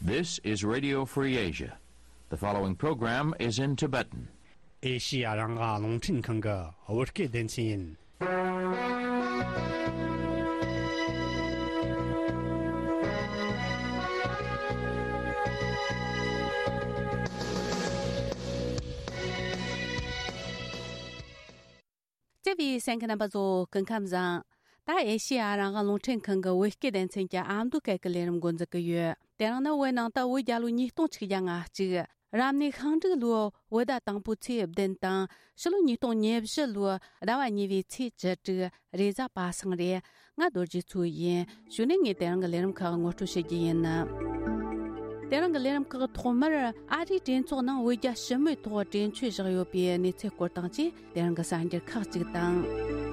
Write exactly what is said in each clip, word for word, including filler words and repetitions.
This is Radio Free Asia. The following program is in Tibetan. ཨེ་ཤི་ཡ་རང་དབང་རླུང་འཕྲིན་ཁང་གི་བོད་སྐད་སྡེ་ཚན་ཡིན། བརྩེ་བའི་གསན་མཁན་རྣམ་པ་ཚོ་སྐུ་ཁམས་བཟང་། ད་ཨེ་ཤི་ཡ་རང་དབང་རླུང་འཕྲིན་ཁང་གི་བོད་སྐད་སྡེ་ཚན་གྱི་ཨ་མདོ་སྐད་ཀྱི་ལས་རིམ་འགོ་འཛུགས་ཀྱི་ཡོད། དེ་རིང་ནི་བོད་ནང་དུ་བོད་རྒྱལ་ལོ་ཉིས་སྟོང་ཆིག་བརྒྱ་ང་གཅིག་རབ་གནས་ཤིང་འབྲུག་ལོའི་བོད་ཟླ་དང་པོའི་ཚེས་བདུན་དང་ཕྱི་ལོ་ཉིས་སྟོང་ཉེར་བཞི་ལོའི་ཟླ་བ་གཉིས་པའི་ཚེས་བཅུ་དྲུག་རེས་གཟའ་པ་སངས་རེད། ང་རྡོ་རྗེ་མཚོ་ཡིན། གཞུག་ནས་ངས་དེ་རིང་གི་ལས་རིམ་ཁག་ངོ་སྤྲོད་བྱེད་རྒྱུ་ཡིན། དེ་རིང་གི་ལས་རིམ་ཁག་ཐོག་མར་ཨ་རིའི་གྲོས་ཚོགས་ནང་བོད་རྒྱ་ཞི་མོལ་ཐོག་གྲོས་ཆོད་བཞག་ཡོད་པའི་གནས་ཚུལ་སྐོར་དང་བཅས་དེ་རིང་གི་གསར་འགྱུར་ཁག་ཅིག་དང་།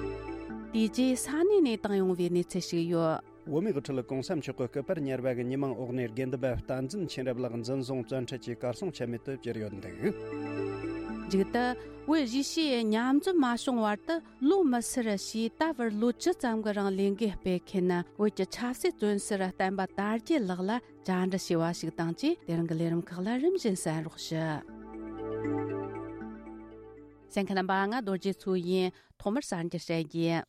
དེ་རྗེས་ས་གནས་ནས་བཏང་ཡོང་བའི་གནས་ཚུལ་ཞིག་ཡོད། བོད་མིའི་དབུ་ཁྲིད་གོང་ས་མཆོག་གི་སྐུ་པར་ཉར་བ་གི་ཉི་མ་འོག་ནས་དགེ་འདུན་པ་བསྟན་འཛིན་མཁྱེན་རབ་ལགས་འཛིན་བཟུང་བཙོན་ཁྲིད་ཀྱིས་གར་སོང་ཆ་མེད་དུ་གྱུར་ཡོད་འདུག་མཇུག་ཏུ། བོད་གཞིས་བྱེས་མཉམ་འཛོམས་མ་བྱུང་བར་དུ་ལོ་མི་སེར་ཞེས་ད་བར་ལོ་བཅུ་ཙམ་གྱི་རིང་ལས་འགུལ་སྤེལ་མཁན་བོད་ཀྱི་ཆབ་སྲིད་བཙོན་ཟུར་བསྟན་པ་དར་རྒྱས་ལགས་ལ་བཅར་འདྲི་བྱས་པ་ཞིག་དང་བཅས་དེ་རིང་གི་ལས་རིམ་ཁག་ལ་རིམ་བཞིན་གསན་རོགས་ཞུ། གསན་མཁན་རྣམ་པ། ང་རྡོ་རྗེ་མཚོ་ཡིན། ཐོག་མར་གསར་འགྱུར་བཤད་རྒྱུ།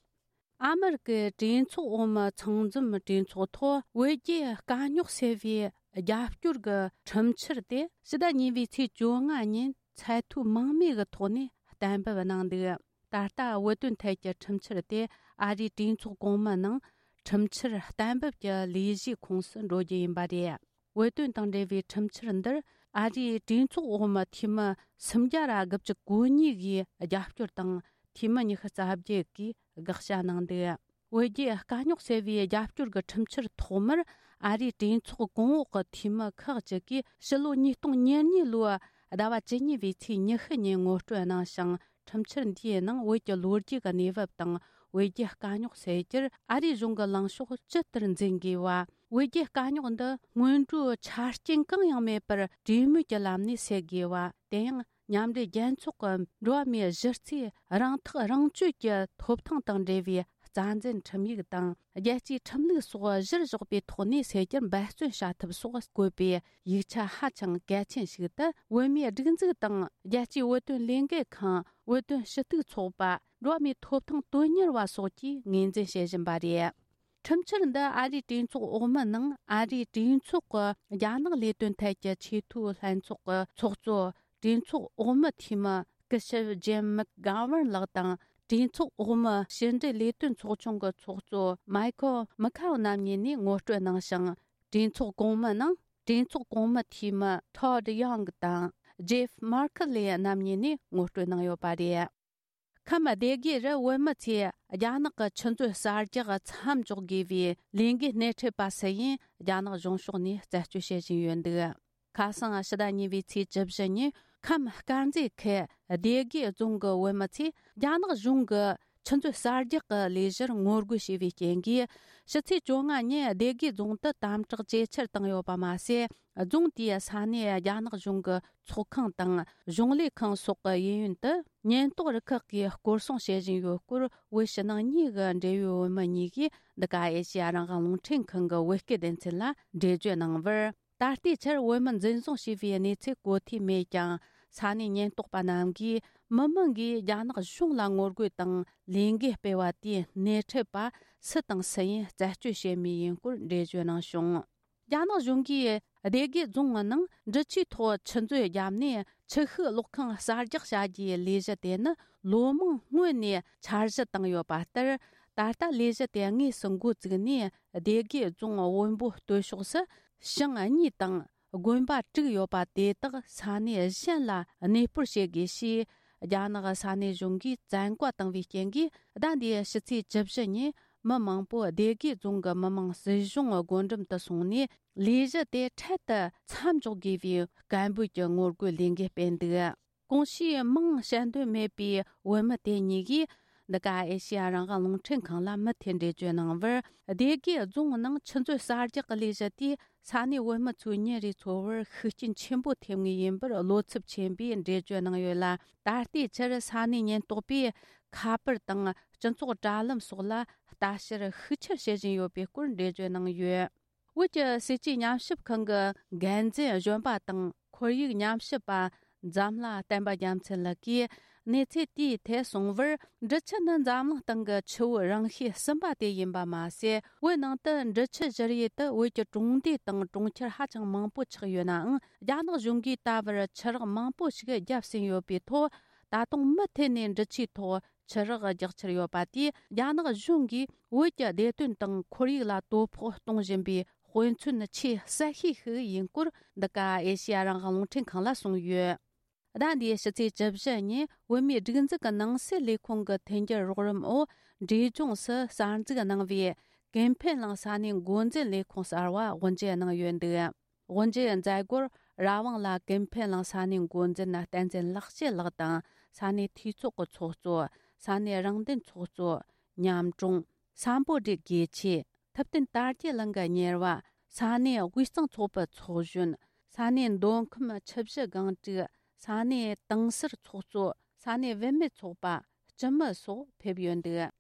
ཨ་མེ་རི་ཀའི་གྲོས་ཚོགས་འོག་མའི་ཚང་འཛོམས་གྲོས་ཚོགས་ཐོག་བོད་རྒྱའི་དཀའ་རྙོག་སེལ་བའི་རྒྱབ་སྐྱོར་གྱི་ཁྲིམས་འཆར་དེ་ཕྱི་ཟླ་གཉིས་པའི་ཚེས་བཅོ་ལྔ་ཉིན་ཚད་མཐོའི་དམངས་མོས་ཀྱི་ཐོག་ནས་གཏན་འབེབས་གནང་འདུག་ད་ལྟ་བོད་དོན་ཐད་ཀྱི་ཁྲིམས་འཆར་དེ་ཨ་རིའི་གྲོས་ཚོགས་གོང་མའི་ནང་ཁྲིམས་འཆར་གཏན་འབེབས་ཀྱི་ལས་གཞིའི་ཁོངས་སུ་འགྲོ་རྒྱུ་ཡིན་པ་རེད། བོད་དོན་དང་འབྲེལ་བའི་ཁྲིམས་འཆར་འདིར་ཨ་རིའི་གྲོས་ཚོགས་འོག་མའི་འཐུས་མི་སུམ་བརྒྱ་ར་དགུ་བཅུ་གོ་གཉིས་ཀྱིས་རྒྱབ་སྐྱོར་དང་། འཐུས་མི་ཉི་ཤུ་རྩ་བརྒྱད་ཀྱིས་དགག་བྱ་གནང་འདུག་བོད་རྒྱའི་དཀའ་རྙོག་སེལ་བའི་རྒྱབ་སྐྱོར་གྱི་ཁྲིམས་འཆར་ཐོག་མར་ཨ་རིའི་གྲོས་ཚོགས་གོང་འོག་གི་འཐུས་མི་ཁག་ཅིག་གིས་ཕྱི་ལོ་ཉིས་སྟོང་ཉེར་གཉིས་ལོའི་ཟླ་བ་བཅུ་གཉིས་པའི་ཚེས་ཉི་ཤུ་ཉིན་ངོ་སྤྲོད་གནང་ཞིང་། ཁྲིམས་འཆར་འདིའི་ནང་བོད་ཀྱི་ལོ་རྒྱུས་ཀྱི་གནས་བབ་དང་བོད་རྒྱའི་དཀའ་རྙོག་སེལ་རྒྱུར་ཨ་རིའི་གཞུང་གི་ལངས་ཕྱོགས་ཇི་ལྟར་འཛིན་དགོས་པ། བོད་རྒྱའི་དཀའ་རྙོག་འདི་སྔོན་འགྲོའི་ཆ་རྐྱེན་གང་ཡང་མེད་པར་གྲོས་མོལ་གྱི་ལམ་ནས་སེལ་དགོས་པ། དེ་ཡང་མཉམ་འབྲེལ་རྒྱལ་ཚོགས་ཀྱི་འགྲོ་བ་མིའི་གཞི་རྩའི་རང་ཐག་རང་གཅོད་ཀྱི་ཐོབ་ཐང་དང་འབྲེལ་བའི་རྩ་འཛིན་ཁྲིམས་ཡིག་དང་རྒྱལ་སྤྱིའི་ཁྲིམས་ལུགས་སོགས་གཞིར་བཞག་པའི་ཐོག་ནས་སེལ་རྒྱུར་འབད་བརྩོན་བྱ་ཐབས་སོགས་བཀོད་པའི་ཡིག་ཆ་ཧ་ཅང་གལ་ཆེན་ཞིག་ཏུ་བོད་མིའི་སྒྲིག་འཛུགས་དང་རྒྱལ་སྤྱིའི་བོད་དོན་ལས་འགུལ་ཁང་། བོད་དོན་ཞུ་གཏུག་ཚོགས་པ། འགྲོ་བ་མིའི་ཐོབ་ཐང་དོན་གཉེར་བ་སོགས་ཀྱིས་ངོས་འཛིན་བྱེད་བཞིན་པ་རེད། ཁྲིམས་འཆར་འདི་ཨ་རིའི་གྲོས་ཚོགས་འོག་མའི་ནང་ཨ་རིའི་གྲོས་ཚོགས་ཀྱི་རྒྱ་ནག་ལས་དོན་ཐད་ཀྱི་ཆེས་མཐོའི་ལྷན་ཚོགས་ཀྱི་ཚོགས་གཙོ། གྲོས་ཚོགས་འོག་མའི་འཐུས་མི་སྐུ་ཞབས་ཇེམ་མེག་གྷ་ཝར་ལགས་དང་། གྲོས་ཚོགས་འོག་མའི་ཕྱི་འབྲེལ་ལས་དོན་ཚོགས་ཆུང་གི་ཚོགས་གཙོ་མའི་ཁོ་མི་ཁའོ་རྣམ་གཉིས་ནས་ངོ་སྤྲོད་གནང་ཞིང་། གྲོས་ཚོགས་གོང་མའི་ནང་གྲོས་ཚོགས་གོང་མའི་འཐུས་མི་ཐོ་ཌི་ཡོང་དང་ཇེབ་མར་ཁི་ལེ་རྣམ་གཉིས་ནས་ངོ་སྤྲོད་གནང་ཡོད་པ་རེད། ཁམས་སྡེ་དགེ་རུ་བོད་མི་ཚོས་རྒྱ་ནག་གི་ཆུ་མཛོད་གསར་རྒྱག་མཚམས་འཇོག་དགོས་པའི་ལས་འགུལ་སྣེ་ཁྲིད་པ་སུ་ཡིན་རྒྱ་ནག་གཞུང་ཕྱོགས་ནས་རྩད་གཅོད་བྱེད་བཞིན་ཡོད་འདུག་ཁ་སང་ཕྱི་ཟླ་གཉིས་པའི་ཚེས་བཅུ་བཞི་ཉིན་ཁམས་དཀར་མཛེས་ཁུལ་སྡེ་དགེ་རྫོང་གི་བོད་མི་ཚོས་རྒྱ་ནག་གཞུང་གི་ཆུ་མཛོད་གསར་རྒྱག་གི་ལས་གཞིར་ངོ་རྒོལ་བྱས་པའི་རྐྱེན་གྱིས། ཕྱི་ཚེས་བཅོ་ལྔ་ཉིན་སྡེ་དགེ་རྫོང་དུ་དམ་དྲག་ཇེ་ཆེར་བཏང་ཡོད་པ་མ་ཟད། རྫོང་དེའི་ས་གནས་རྒྱ་ནག་གཞུང་གི་ཚོགས་ཁང་དང་གཞུང་ལས་ཁང་སོགས་ཀྱི་གཡས་གཡོན་དུ་ཉེན་རྟོག་རུ་ཁག་གིས་སྐོར་སྲུང་བྱེད་བཞིན་ཡོད་སྐོར། བོད་ཕྱི་ནང་གཉིས་ཀྱི་འབྲེལ་ཡོད་བོད་མི་གཉིས་ཀྱིས་འདི་ག་ཨེ་ཤེ་ཡ་རང་དབང་རླུང་འཕྲིན་ཁང་གི་བོད་སྐད་སྡེ་ཚན་ལ་འགྲེལ་བརྗོད་གནང་བར། ད་ལྟའི་ཆར་བོད་མི་འཛིན་བཟུང་བྱས་པའི་གནས་ཚུལ་གོ་ཐོས་མེད་ཀྱང་། ས་གནས་ཉེན་རྟོག་པ་རྣམས་ཀྱིས་མི་མང་གིས་རྒྱ་ནག་གཞུང་ལ་ངོ་རྒོལ་དང་ལས་འགུལ་སྤེལ་བ་དེའི་སྣེ་ཁྲིད་པ་སུ་དང་སུ་ཡིན་རྩད་གཅོད་བྱེད་མུས་ཡིན་སྐོར་འགྲེལ་བརྗོད་གནང་བྱུང་། རྒྱ་ནག་གཞུང་གིས་སྡེ་དགེ་རྫོང་ནང་འབྲི་ཆུའི་ཐོག་ཆུ་མཛོད་བརྒྱབ་ནས་ཆུ་ཤུགས་གློག་ཁང་གསར་རྒྱག་བྱ་རྒྱུའི་ལས་གཞི་དེ་ནི་ལོ་མང་སྔོན་ནས་འཆར་གཞི་བཏིང་ཡོད་པ་ལྟར། ད་ལྟ་ལས་གཞི་དེ་དངོས་སུ་འགོ་བཙུགས་ནས། སྡེ་དགེ་རྫོང་བོན་པོ་སྟོད་ཕྱོགས་སུ་ཞིང་གཉིས་དང་དགོན་པ་དྲུག་ཡོད་པ་དེ་དག་ས་གནས་གཞན་ལ་གནས་སྤོར་བྱེད་དགོས་ཞེས། རྒྱ་ནག་ས་གནས་གཞུང་གིས་བཙན་བཀའ་བཏང་བའི་རྐྱེན་གྱིས། ཟླ་འདིའི་ཕྱི་ཚེས་བཅུ་བཞི་ཉིན་མི་མང་པོ་སྡེ་དགེ་རྫོང་གི་མི་དམངས་སྲིད་གཞུང་སྒོ་འགྲམ་དུ་སོང་ནས། ལས་གཞི་དེ་འཕྲལ་དུ་མཚམས་འཇོག་དགོས་པའི་སྐད་འབོད་ཀྱི་ངོ་རྒོལ་ལས་འགུལ་སྤེལ་འདུག་གོང་ཞུས་མིང་བཤད་འདོད་མེད་པའི་བོད་མི་དེ་གཉིས་ཀྱིས། འདི་ག་ཨེ་ཤེ་ཡ་རང་དབང་རླུང་འཕྲིན་ཁང་ལ་མུ་མཐུད་འགྲེལ་བརྗོད་གནང་བར། སྡེ་དགེ་རྫོང་ནང་ཆུ་མཛོད་གསར་རྒྱག་གི་ལས་གཞི་དེས་ས་གནས་བོད་མི་ཚོའི་ཉིན་རེའི་འཚོ་བར་ཤུགས་རྐྱེན་ཆེན་པོ་ཐེབས་ངེས་ཡིན་པར་བློ་འཚབ་ཆེན་པོས་འགྲེལ་བརྗོད་གནང་ཡོད་ལ། ད་ལྟའི་ཆར་ས་གནས་ཉེན་རྟོག་པས་ཁ་པར་དང་སྤྱི་ཚོགས་དྲ་ལམ་སོགས་ལ་ལྟ་བཤེར་ཤུགས་ཆེར་བྱེད་བཞིན་ཡོད་པའི་སྐོར་འགྲེལ་བརྗོད་གནང་ཡོད། བོད་ཀྱི་སྲིད་ཇུས་ཉམས་ཞིབ་ཁང་གི་འགན་འཛིན་གཞོན་པ་དང་ཁོར་ཡུག་ཉམས་ཞིབ་པ་འཛམ་ལྷ་བསྟན་པ་རྒྱལ་མཚན་ལགས་ཀྱིས་གནས་ཚུལ་དེའི་ཐད་གསུངས་པར། འབྲི་ཆུ་ནི་འཛམ་གླིང་སྟེང་གི་ཆུ་བོའི་རིང་ཤོས་གསུམ་པ་དེ་ཡིན་པ་མ་ཟད། བོད་ནང་དུ་འབྲི་ཆུ་བཞུར་ཡུལ་དུ་བོད་ཀྱི་གྲོང་སྡེ་དང་གྲོང་ཁྱེར་ཧ་ཅང་མང་པོ་ཆགས་ཡོད་ནའང་། རྒྱ་ནག་གཞུང་གིས་ད་བར་ཆུ་རགས་མང་པོ་ཞིག་བརྒྱབ་ཟིན་ཡོད་པའི་ཐོག་ད་དུང་མུ་མཐུད་ནས་འབྲི་ཆུའི་ཐོག་ཆུ་རགས་རྒྱག་འཆར་ཡོད་པ་དེས། རྒྱ་ནག་གཞུང་གིས་བོད་ཀྱི་བདེ་དོན་དང་ཁོར་ཡུག་ལ་དོ་ཕོག་གཏོང་བཞིན་པའི་དཔེ་མཚོན་ཆེས་གསལ་ཤོས་ཤིག་ཡིན་སྐོར། འདི་ག་ཨེ་ཤེ་ཡ་རང་དབང་རླུང་འཕྲིན་ཁང་ལ་གསུངས་ཡོད། ཟླ་འདིའི་ཕྱི་ཚེས་བཅུ་བཞི་ཉིན་བོད་མིའི་སྒྲིག་འཛུགས་ཀྱི་ནང་སྲིད་ལས་ཁུངས་ཀྱི་མཐུན་འགྱུར་རོགས་རམ་འོག་འབྲས་ལྗོངས་སུ་གསར་འཛུགས་གནང་བའི་ཀུན་ཕན་གླིང་ས་གནས་འགོ་འཛིན་ལས་ཁུངས་གསར་བ་དབུ་འབྱེད་གནང་ཡོད་འདུག། དབུ་འབྱེད་མཛད་སྒོར་ར་ཝང་ལ་ཀུན་ཕན་གླིང་ས་གནས་འགོ་འཛིན་བསྟན་འཛིན་ལེགས་བཤད་ལགས་དང་། ས་གནས་འཐུས་ཚོགས་ཀྱི་ཚོགས་གཙོ། ས་གནས་རང་བདེན་ཚོགས་གཙོ། ཉམ་གྲོང་། སམ་བྷོ་ཊའི་དགེ་ཆོས། ཐུབ་བསྟན་དར་རྒྱས་གླིང་གི་གཉེར་བ། ས་གནས་དབུས་གཙང་ཚོགས་པའི་ཚོགས་གཞོན། ས་གནས་མདོ་ཁམས་ཆུ་བཞི་སྒང་དྲུག། ས་གནས་དིང་སར་ཚོགས་གཙོ། ས་གནས་བུད་མེད་ཚོགས་པ། སྤྱི་མི་སོགས་ཕེབས་ཡོད་འདུག།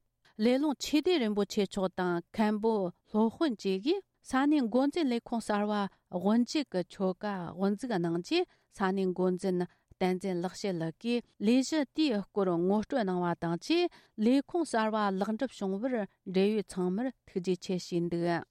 ལེ་ལོང་ཆོས་སྡེ་རིན་པོ་ཆེ་མཆོག་དང་མཁན་པོ་སློབ་དཔོན་བཅས་ཀྱིས་ས་གནས་འགོ་འཛིན་ལས་ཁུངས་གསར་བ་དབུ་འབྱེད་ཀྱི་ཆོ་ག་དབུ་འཛུགས་གནང་རྗེས། ས་གནས་འགོ་འཛིན་བསྟན་འཛིན་ལེགས་བཤད་ལགས་ཀྱིས་ལས་གཞི་དེའི་སྐོར་ངོ་སྤྲོད་གནང་བ་དང་བཅས། ལས་ཁུངས་གསར་བ་ལེགས་འགྲུབ་བྱུང་བར་འབྲེལ་ཡོད་ཚང་མར་ཐུགས་རྗེ་ཆེ་ཞུས་འདུག།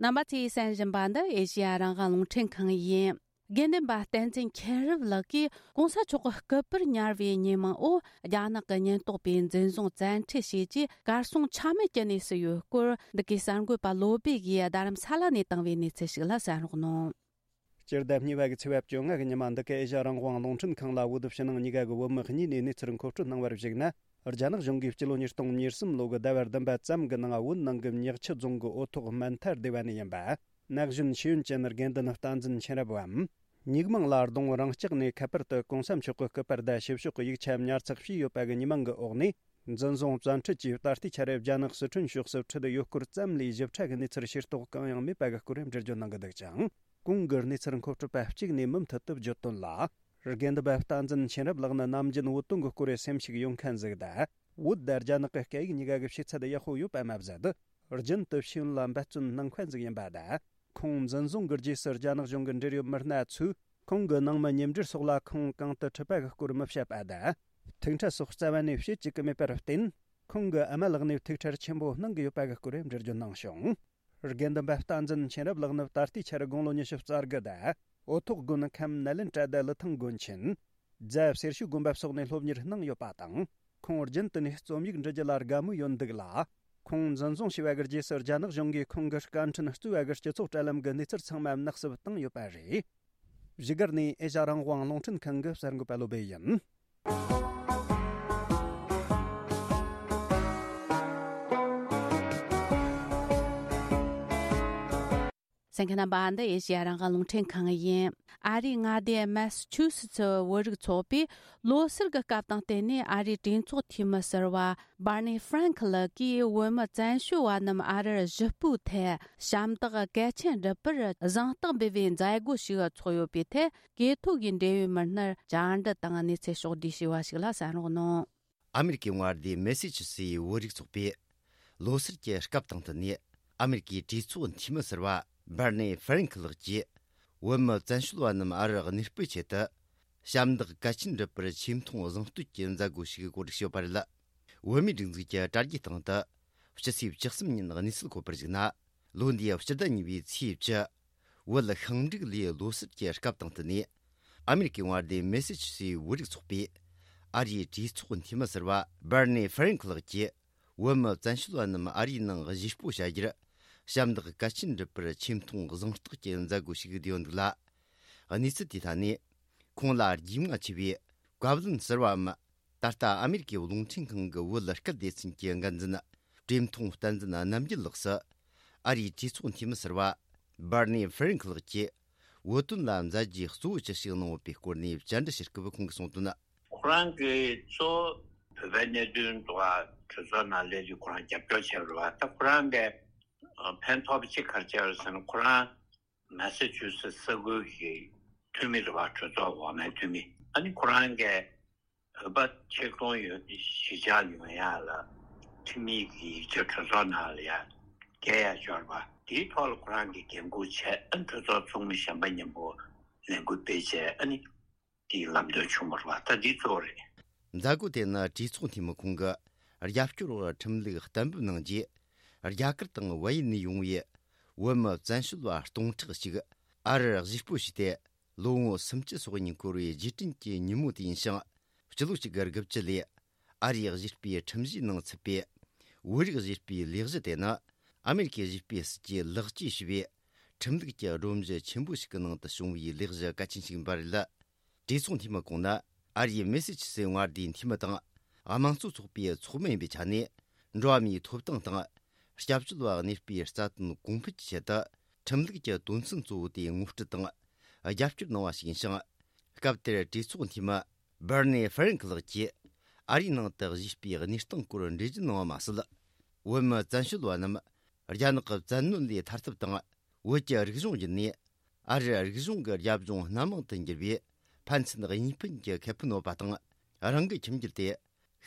རྣམ་པ་ཚོས་གསན་བཞིན་པ་འདི་ཨེ་ཤེ་ཡ་རང་དབང་རླུང་འཕྲིན་ཁང་ཡིན། དགེ་འདུན་པ་བསྟན་འཛིན་མཁྱེན་རབ་ལགས་ཀྱིས་གོང་ས་མཆོག་གི་སྐུ་པར་ཉར་བའི་ཉེས་མིང་འོག་རྒྱ་ནག་གི་ཉེན་རྟོག་པས་འཛིན་བཟུང་བཙན་ཁྲིད་བྱས་རྗེས་གར་སོང་ཆ་མེད་ཀྱི་གནས་སུ་ཡོད་སྐོར། འདི་གའི་གསར་འགོད་པ་བློ་བྷེ་ཡིས་རྡ་རམ་ས་ལ་ནས་བཏང་བའི་གནས་ཚུལ་ཞིག་ལ་གསན་རོགས་གནང་། སྤྱི་ཟླ་གཉིས་པ་གི་ཚེས་པ་བཅོ་ལྔ་གི་ཉི་མ་འདི་ག་ཨེ་ཤ་ཡ་རང་དབང་རླུང་འཕྲིན་ཁང་ལ་འོས་བསྡུ་ཕྱི་ནང་གཉིས་ཀ་གི་བོད་མི་གཉིས་ནས་གནས་ཚུལ་མཁོ་སྤྲོད་གནང་བར་གཞིགས་ན། རྒྱ་ནག་གཞུང་གིས་སྤྱི་ལོ་ཉིས་སྟོང་ཉེར་གསུམ་ལོ་གི་ཟླ་བ་བདུན་པ་ཙམ་གྱི་ནང་བོད་ནང་གི་ཉག་ཆུ་རྫོང་གི་འོ་ཐོག་སྨན་ཐར་སྡེ་བ་ནས་ཡིན་པ། ན་གཞོན་ཤེས་ཡོན་ཅན་དགེ་འདུན་བསྟན་འཛིན་མཁྱེན་རབ་བམ། ཉིག་མིང་ལ་རྡུང་རང་ལྕགས་ནས་ཁ་པར་དུ་གོང་ས་མཆོག་གི་སྐུ་པར་དང་ཞིབ་ཕྱོགས་ཀྱི་ཡིག་ཆ་ཉར་ཚགས་བྱས་ཡོད་པ་གི་ཉེས་མིང་གི་འོག་ནས་འཛིན་བཟུང་བཙན་ཁྲིད་ཀྱིས། ད་ལྟའི་ཆར་རྒྱ་ནག་སི་ཁྲོན་ཕྱོགས་སུ་ཁྲིད་ཡོད་སྐོར་ཙམ་ལས་ཞིབ་ཕྲ་གི་གནས་ཚུལ་ཤེས་རྟོགས་གང་ཡང་མེད་པ་གི་སྐོར་འགྲེལ་བརྗོད་གནང་གི་འདུག་ཅིང་། གོང་གི་གནས་ཚུལ་མཁོ་སྤྲོད་པ་གཅིག་ནས་མུ་མཐུད་དུ་བརྗོད་དོན་ལ། དགེ་འདུན་པ་བསྟན་འཛིན་མཁྱེན་རབ་ལགས་ནི་ནམ་རྒྱུན་བོད་དོན་གྱི་སྐོར་སེམས་ཤུགས་ཡོད་མཁན་ཟིག་དང་། བོད་དང་རྒྱ་ནག་གི་སྐད་ཡིག་གཉིས་ཀ་གི་ཤེས་ཚད་ཡག་པོ་ཡོད་པ་མ་ཟད། རྒྱུན་དུ་ཤེས་ཡོན་ལ་འབད་བརྩོན་གནང་མཁན་ཟིག་ཡིན་པ་དང་། ཁོང་འཛིན་བཟུང་གི་རྗེས་སུ་རྒྱ་ནག་གཞུང་གི་འབྲེལ་ཡོད་མི་སྣ་ཚོས་ཁོང་གི་ནང་མི་མཉམ་འབྲེལ་སོགས་ལ་ཁོང་གང་དུ་ཁྲིད་པ་གི་སྐོར་མི་བཤད་པ་དང་། ཐུགས་ཁྲལ་སོགས་རྩ་བ་ནས་བྱེད་བཅུག་གི་མེད་པར་བརྟེན། ཁོང་གི་ཨ་མ་ལགས་ནས་ཐུགས་ཁྲལ་ཆེན་པོ་གནང་གི་ཡོད་པ་གི་སྐོར་འགྲེལ་བརྗོད་གནང་བྱུང་། དགེ་འདུན་པ་བསྟན་འཛིན་མཁྱེན་རབ་ལགས་ནི་ད་ལྟའི་ཆར་དགུང་ལོ་ཉི་ཤུ་རྩ་དགུ་དང་། འོ་ཐོག་དགོན་ཁམས་ནཱ་ལེནྡྲ་དང་ལི་ཐང་དགོན་ཆེན། རྫ་སེར་ཤུལ་དགོན་པ་སོགས་ནས་སློབ་གཉེར་གནང་ཡོད་པ་དང་། ཁོང་རྒྱུན་དུ་ནས་རྩོམ་ཡིག་འབྲི་རྒྱུ་ལ་དགའ་མོས་ཡོད་འདུག་ལ། ཁོང་འཛིན་བཟུང་བྱས་པ་གི་རྗེས་སུ་རྒྱ་ནག་གཞུང་གིས་ཁོང་གི་བཀའ་འཕྲིན་གཙོས་པ་གི་སྤྱི་ཚོགས་དྲ་ལམ་གི་གནས་ཚུལ་ཚང་མ་ནག་སུབ་བཏང་ཡོད་པ་རེད། བཞུགས་སྒར་ནས་ཨེ་ཤ་ཡ་རང་དབང་རླུང་འཕྲིན་ཁང་གི་གསར་འགོད་པ་བློ་བྷེ་ཡིན། གསན་མཁན་རྣམ་པ། འདི་ཨེ་ཤེ་ཡ་རང་དབང་རླུང་འཕྲིན་ཁང་ཡིན། ཨ་རིའི་མངའ་སྡེ་མེ་སི་ཆུ་སི་ཚི་བོད་རིགས་ཚོགས་པས་ལོ་སར་གྱི་སྐབས་དང་བསྟུན་ནས། ཨ་རིའི་གྲོས་ཚོགས་འཐུས་མི་ཟུར་པ་བར་ནི་ཧྥ་རན་ཁི་ལགས་ཀྱིས་བོད་མི་བཙན་བྱོལ་བ་རྣམས་ཨ་རིར་གཞིས་སྤོས་ཐད་ཞབས་འདེགས་གལ་ཆེན་སྒྲུབ་པར་གཟེངས་རྟགས་འབུལ་བའི་མཛད་སྒོ་ཞིག་ཚོགས་ཡོད་པའི་ཐད། གྲོས་ཚོགས་ཀྱི་འབྲེལ་ཡོད་མི་སྣར་བཅར་འདྲི་དང་གནས་ཚུལ་ཕྱོགས་བསྒྲིགས་བྱས་པ་ཞིག་ལ་གསན་རོགས་གནང་། ཨ་མེ་རི་ཀའི་མངའ་སྡེ་མེ་སི་ཆུ་སི་བོད་རིགས་ཚོགས་པས་ལོ་སར་གྱི་སྐབས་དང་བསྟུན་ནས། ཨ་མེ་རི་ཀའི་གྲོས་ཚོགས་འཐུས་མི་ཟུར་པ་བར་ནེ་ཧྥ་རན་ཁི་ལགས་ཀྱིས། བོད་མི་བཙན་བྱོལ་བ་རྣམས་ཨ་རིར་གནས་སྤོས་ཆེད་དུ། ཞབས་འདེགས་གལ་ཆེན་སྒྲུབ་པར་ཆེ་མཐོང་གཟེངས་བསྟོད་ཀྱི་མཛད་སྒོ་ཞིག་གོ་སྒྲིག་བྱས་པ་རེད། བོད་མིའི་སྒྲིག་འཛུགས་ཀྱི་དྲ་རྒྱའི་སྟེང་དུ། ཕྱི་ཚེས་བཅུ་གསུམ་ཉིན་གནས་ཚུལ་འཁོད་པར་གཞིགས་ན། ལོ་འདིའི་སྤྱི་ཟླ་གཉིས་པའི་ཚེས་བཅུ། བོད་ཤིང་འབྲུག་ལོའི་ལོ་སར་གྱི་སྐབས་དང་བསྟུན་ནས། ཨ་མེ་རི་ཀའི་མངའ་སྡེ་མེ་སི་ཆུ་སི་བོད་རིགས་ཚོགས་པས། ཨ་རིའི་གྲོས་ཚོགས་འཐུས་མི་ཟུར་པ་བར་ནེ་ཧྥ་རན་ཁི་ལགས་ཀྱིས། བོད་མི་བཙན་བྱོལ་བ་རྣམས་ཨ་རིའི་ནང་གཞིས་སྤོ་བྱ་རྒྱུར། ཞབས་འདེགས་གལ་ཆེན་སྒྲུབ་པར་ཆེ་མཐོང་གཟེངས་རྟགས་ཀྱི་མཛད་སྒོ་ཞིག་བསྡུས་ཡོད་འདུག་ལ། གནས་ཚུལ་དེའི་ཐད་ནས། ཁོང་ལ་རྒྱུས་མངའ་ཆེ་བའི་བཀའ་བློན་ཟུར་པའམ། ད་ལྟ་ཨ་མེ་རི་ཀའི་རླུང་འཕྲིན་ཁང་གི་བོད་སྐད་སྡེ་ཚན་གྱི་འགན་འཛིན་བཀྲས་མཐོང་བསྟན་འཛིན་རྣམ་རྒྱལ་ལགས་སུ། ཨ་རིའི་གྲོས་ཚོགས་འཐུས་མི་ཟུར་པ་བར་ནེ་ཧྥ་རན་ཁི་ལགས་ཀྱིས། བོད་དོན་ལ་མཛད་རྗེས་གཙོ་བོ་ཅི་ཞིག་གནང་ཡོད་པའི་སྐོར་ནས་བཅར་འདྲི་ཞུ་སྐབས་ཁོང་གིས་གསུངས་དོན། ཁོ་རང་གིས་གཙོ་བོ་བོད་པའི་གནད་དོན་ཐོག་གྲོས་ཚོགས་ནང་སླེབས་རྗེས་ཁོ་རང་རྒྱབ་སྐྱོར་བྱས་པ་རེད་བ། ད་ཁོ་རང་གིས་ཕན་ཐོགས་པ་ཅིག་ག་རེ་བྱས་པ་རེད་ཟེར་ན། ཁོ་རང་མ་ས་ཆུ་སི་ས་ཁུལ་གྱི་འཐུས་མི་རེད་བ། གྲོས་ཚོགས་འོག་མའི་འཐུས་མི། ཨ་ནི་ཁོ་རང་གིས་ བོད་པ་ཆེད་གཏོང་ཡོད་གཞིས་ཆགས་ཡོང་ཡ་ལ་ཁྲིམས་ཡིག་གི་ཡིག་ཆ་གྲོས་ཚོགས་ནང་ལ་ཡ་འགེལ་ཡ་འབྱོར་བ་དེའི་ཐོག་ལ་ཁོ་རང་གིས་འགན་འཁུར་བྱས། ཨ་གྲོས་ཚོགས་ཚོགས་མི་གཞན་པ་མཉམ་པོ་ལས་འགུལ་སྤེལ་བྱས། ཨ་ནི་དེའི་ལམ་སྟོན་བྱུང་བ་རེད་བ། ད་འདི་གཙོ་བོ་རེད། མཛད་སྒོ་དེ་ནི་གྲོས་ཚོགས་འཐུས་མི་ཁོང་གིས་རྒྱབ་སྐྱོར་འོག་ཁྲིམས་ལུགས་གཏན་འབེབས་གནང་རྗེས། རྒྱ་གར་དང་བལ་ཡུལ་ནས་ཡོང་བའི་བོད་མི་བཙན་བྱོལ་བ་སྟོང་ཕྲག་ཅིག་ཨ་རིར་གཞིས་སྤོ་བྱས་ཏེ། ལོ་ངོ་སུམ་ཅུ་སོ་གཉིས་འཁོར་བའི་རྗེས་དྲན་གྱི་ཉིན་མོ་དེ་ཡིན་ཞིང་། སྤྱི་ལོ་གཅིག་དགུ་བཅུ་ལོར་ཨ་རིའི་གཞིས་སྤོའི་ཁྲིམས་གཞིའི་ནང་ཚུད་པའི་བོད་རིགས་གཞིས་སྤོའི་ལས་གཞི་དེ་ནི། ཨ་མེ་རི་ཁའི་གཞིས་སྤོའི་སྲིད་ཇུས་ལེགས་བཅོས་ཞུས་པའི་ཁྲིམས་ལུགས་ཀྱི་སྒྲོམ་གཞི་ཆེན་པོ་ཞིག་གི་ནང་དུ་བྱུང་བའི་ལས་གཞི་གལ་ཆེན་ཞིག་ཡིན་པ་རེད། གྲོས་ཚོགས་འཐུས་མི་ཁོང་ནི་ཨ་རིའི་མེ་སི་ཆུ་སེ་མངའ་སྡེའི་འཐུས་མི་དང་། དམངས་གཙོ་ཚོགས་པའི་ཚོགས་མི་ཡིན་པའི་ཆ་ནས། འགྲོ་བ་མིའི་ཐོབ་ཐང་དང་། སྐྱབས་བཅོལ་བ་གནས་སྤོའི་རྩ་དོན་གོང་འཕེལ་གྱི་ཆེད་དུ། ཁྲིམས་ལུགས་ཀྱི་དོན་ཚན་གཙོ་བོ་དེ་ངོ་སྤྲོད་དང་། རྒྱབ་སྐྱོར་གནང་བ་ཞིག་ཡིན་ཞིང་། སྐབས་དེར་གྲོས་ཚོགས་འཐུས་མི་བར་ནེ་ཧྥ་རན་ཁི་ལགས་ཀྱིས། ཨ་རིའི་ནང་དུ་གཞིས་སྤོའི་གནས་སྟངས་སྐོར་འགྲེལ་བརྗོད་གནང་བ་མ་ཟད། བོད་མི་བཙན་བྱོལ་བ་རྣམས་རྒྱ་ནག་གི་བཙན་གནོན་ལས་ཐར་ཐབས་དང་། བོད་ཀྱི་རིག་གཞུང་བརྒྱུད་ནས་ཨ་རིར་རིག་གཞུང་གི་རྒྱབ་ལྗོངས་སྣ་མང་དུ་འགྱུར་བའི་ཕན་ཚུན་གཉིས་ཕན་གྱི་ཁེ་ཕན་ཡོད་པ་དང་། རང་གི་ཁྱིམ་རྒྱུད་དེ་